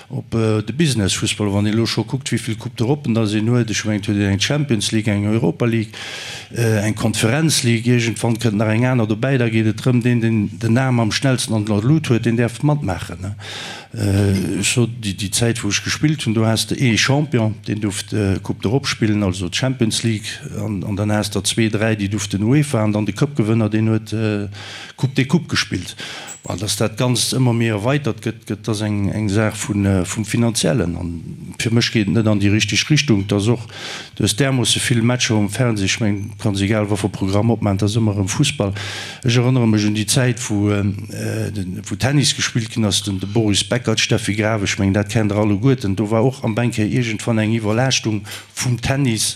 S4: Op de Business-Fussball, wann een elo scho kuckt, wéi vill Coupe d'Europen dass een huet, ech mengen, et huet een eng Champions League, eng Europa League, eng Conference League, iergendwann kënnt nach eng aner dobäi, da geet et drëm, deen, deen den Aarm am schnellsten an der Lut huet, deen däerf matmaachen. Ech sot, déi Zäit, wou ech gespillt hunn, do has de ee Champion, deen duerft d'Coupe d'Europe spillen, also d'Champions League, an dann has der zwee, dräi, déi duerften UEFA, an dann de Cupgewënner, deen huet d'Coupe des Coupes gespillt. Bon, dass dat Ganzt ëmmer méi erweitert gëtt, gëtt ass eng eng Saach vu vum Finanziellen. An fir mech geet et net an déi richteg Richtung. Et ass och, du hues därmoosse vill Matcher um Fernseh, ech mengen, du kanns egal wat fir e Programm opmaachen, et ass ëmmer erëm Fussball. Ech erënnere mech un déi Zäit, wou wou Tennis gespillt ginn ass, den de Boris Becker, d'Steffi Graf, ech mengen, dat kennt Der alleguerten. Do war och am Bänke iergendwann eng Iwwerlaaschtung vum Tennis.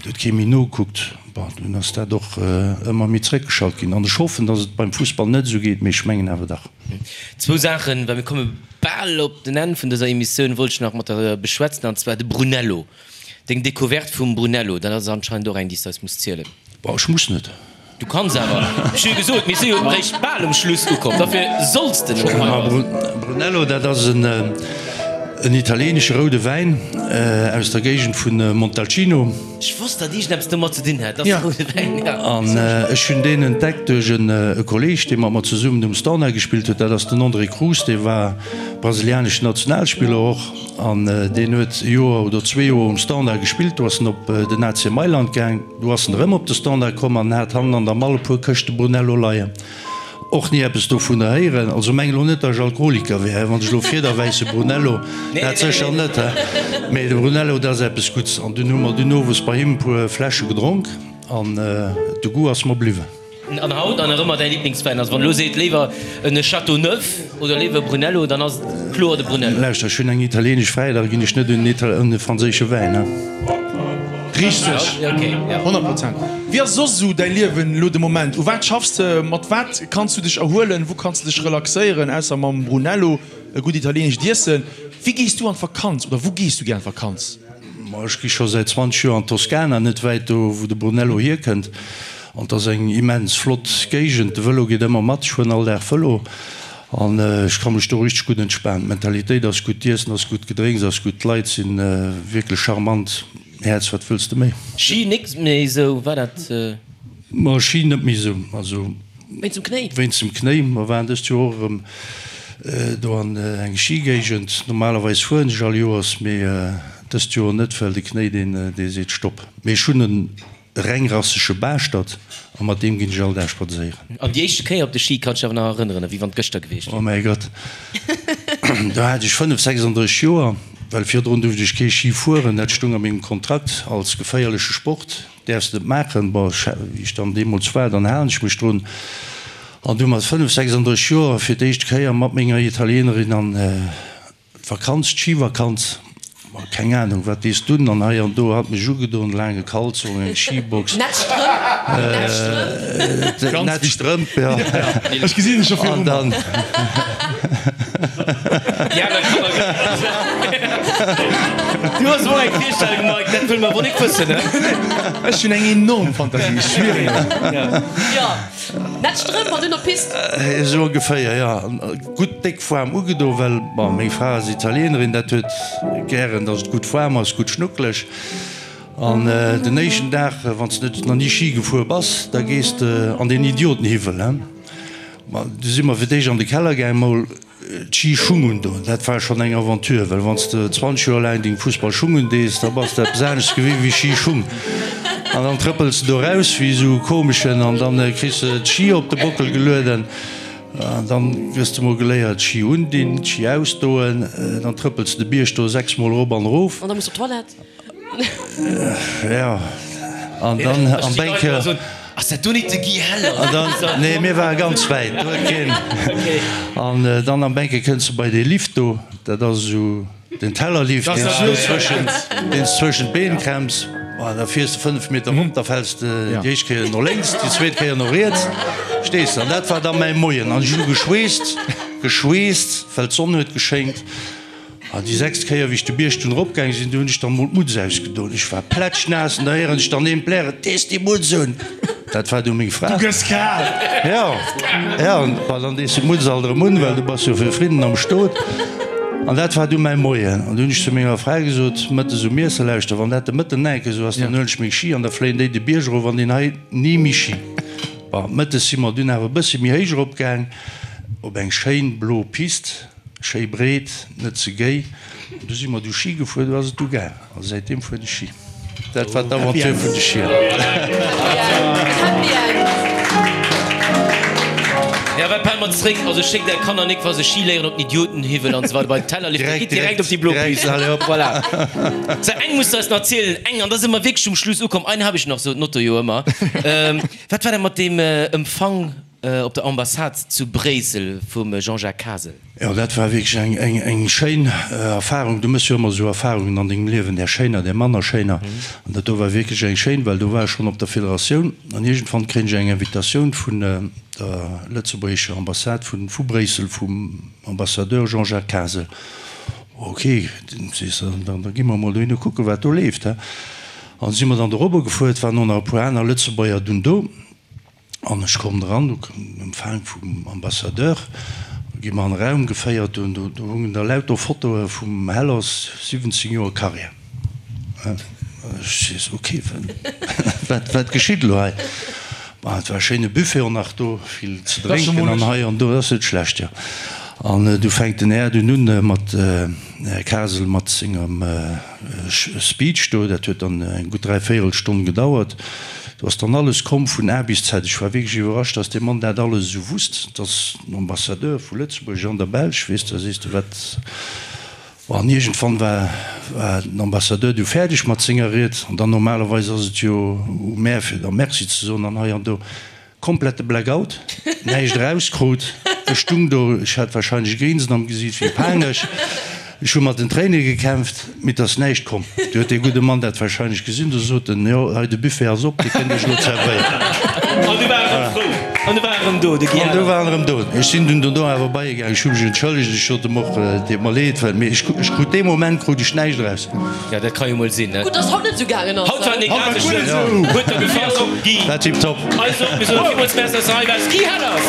S4: Et huet kee méi nogekuckt. Bon, dunn ass dat och ëmmer méi zréckgeschalt ginn. An ech hoffen, datt et beim Fussball net esou geet, mee ech mengen awer dach.
S2: Zwou Saachen, well mir komme bal op den Enn vun dëser Emissioun, wollt ech nach mat der beschwätzen, an zwar de Brunello. Deng Decouverte vum Brunello, dat ass anscheinend och eng, déi s de eis muss zielen.
S4: Bon, ech muss net.
S2: Du kanns awer. Ech hu jo gesot, mir si jo eréischt bal um Schluss ukomm, dofir solls de net hei bass.
S4: Brunello, dat ass en italieenesche roude Wäin aus der Géigend vu Montalcino.
S2: Ech wosst, datt iergendeppes domat ze dinn hätt, dass de roude Wäin,
S4: jo. An ech hunn deen entdeckt duerch e Kolleeg, dee mat mer zesummen um Standard gespillt huet. Dat ass den André Cruz, dee war brasilianeschen Nationalspiller och. An deen huet e Joer oder zwee Joer um Standard gespillt. Do ass en op den AC Mailand gaang. Du ass en erëm op de Standard komm an hat hannen an der Mall e puer Këschte Brunello leien. Och ni eppes dovunner héieren. Also meng elo net, datt ech Alkoholiker wär, he, wann ech elo fiederwäisse Brunello, dat sécher net, he. Mee de Brunello, dat ass eppes Gutts. An dunn hu mer dunn owes bei him e puer Fläsche gedronk an de Goût ass mer bliwwen.
S2: An haut an nach ëmmer däi Liblingswäin? Also wann elo seet léiwer en Châteauneuf oder léiwer e Brunello, dann ass et kloer de Brunello.
S4: Lauschter, ech hunn eng italienesch Fräi, da ginn ech net un e franséische Wäin, he.
S3: Richteg, 100 Prozent. Wéi ass soss esou däi Liewen elo de Moment? U wat schaffs de? Mat wat kanns du dech erhuelen? Wou kanns de dech relaxéieren, ausser mam Brunello, e gutt italienescht Iessen? Wéi gees du an d'Vakanz oder wou gees du gär an d'Vakanz?
S4: Ma ech gi scho säit 20 Joer an d'Toskana, net wäit do wou de Brunello hierkënnt. An et ass eng immens flott Géigend. De Vëlo geet ëmmer mat, ech fueren all Dag Vëlo an ech ka mech do richteg gutt entspanen. D'Mentalitéit ass gutt, d'Iessen ass gutt, d'Gedrénks ass gutt, d'Leit si wierklech charmant. Häerz, wat wëlls de méi?
S2: Schi nik méi esou, war dat?
S4: Ma Schi net méi esou, also.
S5: Wéinst dem Knéi?
S4: Wéinst dem Knéi. Mer waren dëst Joer och erëm do an eng Schigéigend. Normalerweis fueren ech all Joers, mee dëst Joer net, well de Knéi deen dee seet Stopp. Mee ech hunn en rengrassege Baaschtert a mat deem ginn ech all Dag spadséieren.
S2: An déi éischte Kéier op de Ski kanns dech awer nach erënneren, ewéi wann et gëschter gewiescht
S4: wier? Oh mäi Gott, do hat ech 5, 36 Joer, well virdrun duerft ech kee Ski fueren, dat stung a mengem Kontrakt als geféierleche Sport. Däerfs net maachen. Bon, wéi ech dann deemools war, dann halen ech mech drun. An du mat 5, 36 Joer fir d'éischt Kéier mat menger Italienerin an d'Vakanz, d'Schivakanz. Ma keng Ahnung, wat dees dunn an hei an do hat mech ugedon, laange Kalzong, eng Schibox.
S5: Nett Strëmp, nett Strëmp.
S4: Nett Strëmp, ja.
S3: Ech gesinn dech scho viru mer.
S2: Du hues och eng Virstellung, Mike, dat wëlle mer wohl nik wëssen, ne?
S3: Ech hunn eng enorm Fantasie, ech schwieren
S5: et. Jo, nett Strëmp an dunn op d'Pist.
S4: Esou ongeféier, jo. Gutt déck waarm ugedo, well, bon, meng Fra ass Italienerin, dat huet gären, dass et gutt waarm ass, gutt schnuckeleg. An den éischten Dag, wann s de net nach ni Schi gefuer bass, da gees de an deen Idiotenhiwwel, he. Ma du si mer fir d'éischt an de Keller gaang, mol d'Schischung undoen. Dat war schonn eng Aventure, well wann s de 20 Joer laang deng Fussballschung undees, da bass de eppes anescht gewinnt wéi Schischung. An dann trëppels de do raus wéi esou e Komeschen an dann kriss de d'Schi op de Bockel gelueden. An dann gëss de mol geléiert, Ski undinn, Ski ausdoen, dann trëppels de de Bierg do 6 mol erop an erof.
S5: An da muss op d'Toilette.
S4: Jo, an dann am Bänke.
S2: Ass dat do nit de Guy Heller?
S4: An dann, nee, mir ware ganz wäit, do huet keen. An dann am Bänke kënns de bei dee Lift do, dat ass esou. Den Tellerlift, deen s du zwëschen, deen s zwëschen d'Been klemms, ma da fiers de 5 Meter rop, da fäls de déi éischt Kéier no lénks, déi zweet Kéier no riets, stees de. An dat war da mäi Moien. An ech hu geschweesst, geschweesst, well d'Sonn huet geschéngt. An déi sechst Kéier, wéi ech de Bierg dunn eropgaang sinn, du hunn ech dann emol d'Mutz ausgedoen. Ech war plätschnaass an da héieren ech dann een blären, Dees déi Mutz un! Dat war du meng Fra.
S3: Du gëss kal!
S4: Jo, jo, an dann dees de d'Mutz alt erëm un, well du bass jo fir Frieden am Stot. An dat war du mäi Moien. An du hunn ech zu menger Fra gesot, mëttes um Iesse, Lauschter, wann dat de Mëtten nach eng Kéier esou ass, dann huelen ech meng Ski an da fléien déi de Bierg erof an deen hei ni méi Ski. Bon, mëttes si mer dunn awer e bësse méi héich erop gaang, op eng schéin blo Pist, schéi breet, net ze géi. Du si mer du Ski gefuer, du ass et du gaang. A säitdeem fueren ech Ski. Dat war d'Aventure vun de Schier.
S5: Happy End.
S2: Ja, wat pelle mer zréck? Also schéckt är Kanner nik wa se Ski léieren op den Idiotenhiwwel an esou weider bei den Tellerlift. Direkt, gitt direkt op déi blo Pist. Voilà. Sou, eng muss de eis nach erzielen, eng, an da si mer wierklech um Schluss ukomm. Eine habe ich noch, sot den Otto jo ëmmer. Wat war dat mat deem Empfang op der Ambassade zu Bréissel vum Jean-Jacques Kasel?
S4: Jo, dat war wierklech eng schéin Erfahrung. Du méchs jo ëmmer esou Erfahrungen an dengem Liewen, där schéiner, där manner schéiner. An dat do war wierklech eng schéin, well do war ech schonn op der Federatioun an iergendwann kréien ech eng Invitatioun vun der lëtzebuergescher Ambassade vu Bréissel, vum Ambassadeur Jean-Jacques Kasel. Ok, sees de, da gi mer emol dohinner kucken, wat do leeft, he. An si mer dann dorobber gefuer, et waren och nach e puer aner Lëtzebuerger dunn do. An ech komm dran, do koum den Empfang vum Ambassadeur, do gi mer an e Raum geféiert, do do hungen da lauter Fotoe vum Hellers, 17 Joer Carrière. Ech sees, ok, wat wat geschitt elo hei? Bon, et war e schéine Buffet och nach do, vill ze drénken an hei an do, dat ass net schlecht, jo. An du fänkt den Här dunn un mat, den Här Kasel mat sengem Speech do, dat huet dann eng gutt dräivéierelstonn gedauert. Do ass dann alles komm vun A bis Z. Ech war wierklech iwwerrascht, dass dee Mann dat alles esou wusst. Dat ass den Ambassadeur vu Lëtzebuerg an der Belsch, weess de, da sees de, wat. An iergendwann war den Ambassadeur du fäerdeg mat senger Ried. An dann normalerweis ass et jo u mär, fir da Merci ze soen an hei an do. Komplette Blackout, näischt erauskrut. Ech stung do, ech hat wahrscheinlech e Grinsen am Gesiit wéi panesch. Ech hu mat den Tréine gekämpft, mee et ass näischt komm. Du huet dee gudde Mann dat wahrscheinlech gesinn, du sot en, Jo, hei de Buffet ass op, Dir kënnt iech elo zerwéieren.
S2: An du war erëm frou. An du war erëm do, de Guy
S4: An du war en erëm do. Ech sinn dunn dono awer bei e gaang, ech hu mech entschëllegt, ech sot em och, et deet mer leed, well, mee ech krut dee Moment krut ech näischt eraus.
S2: Ja, dat ka jo mol sinn, ne?
S5: Gutt, dass haut net esou gaangen ass.
S2: Haut war en egal sou schlëmm. Huet der gefall, Guy?
S4: War tiptop.
S2: Also, mir soen villmools Merci, dass de hei waars, Guy Hellers!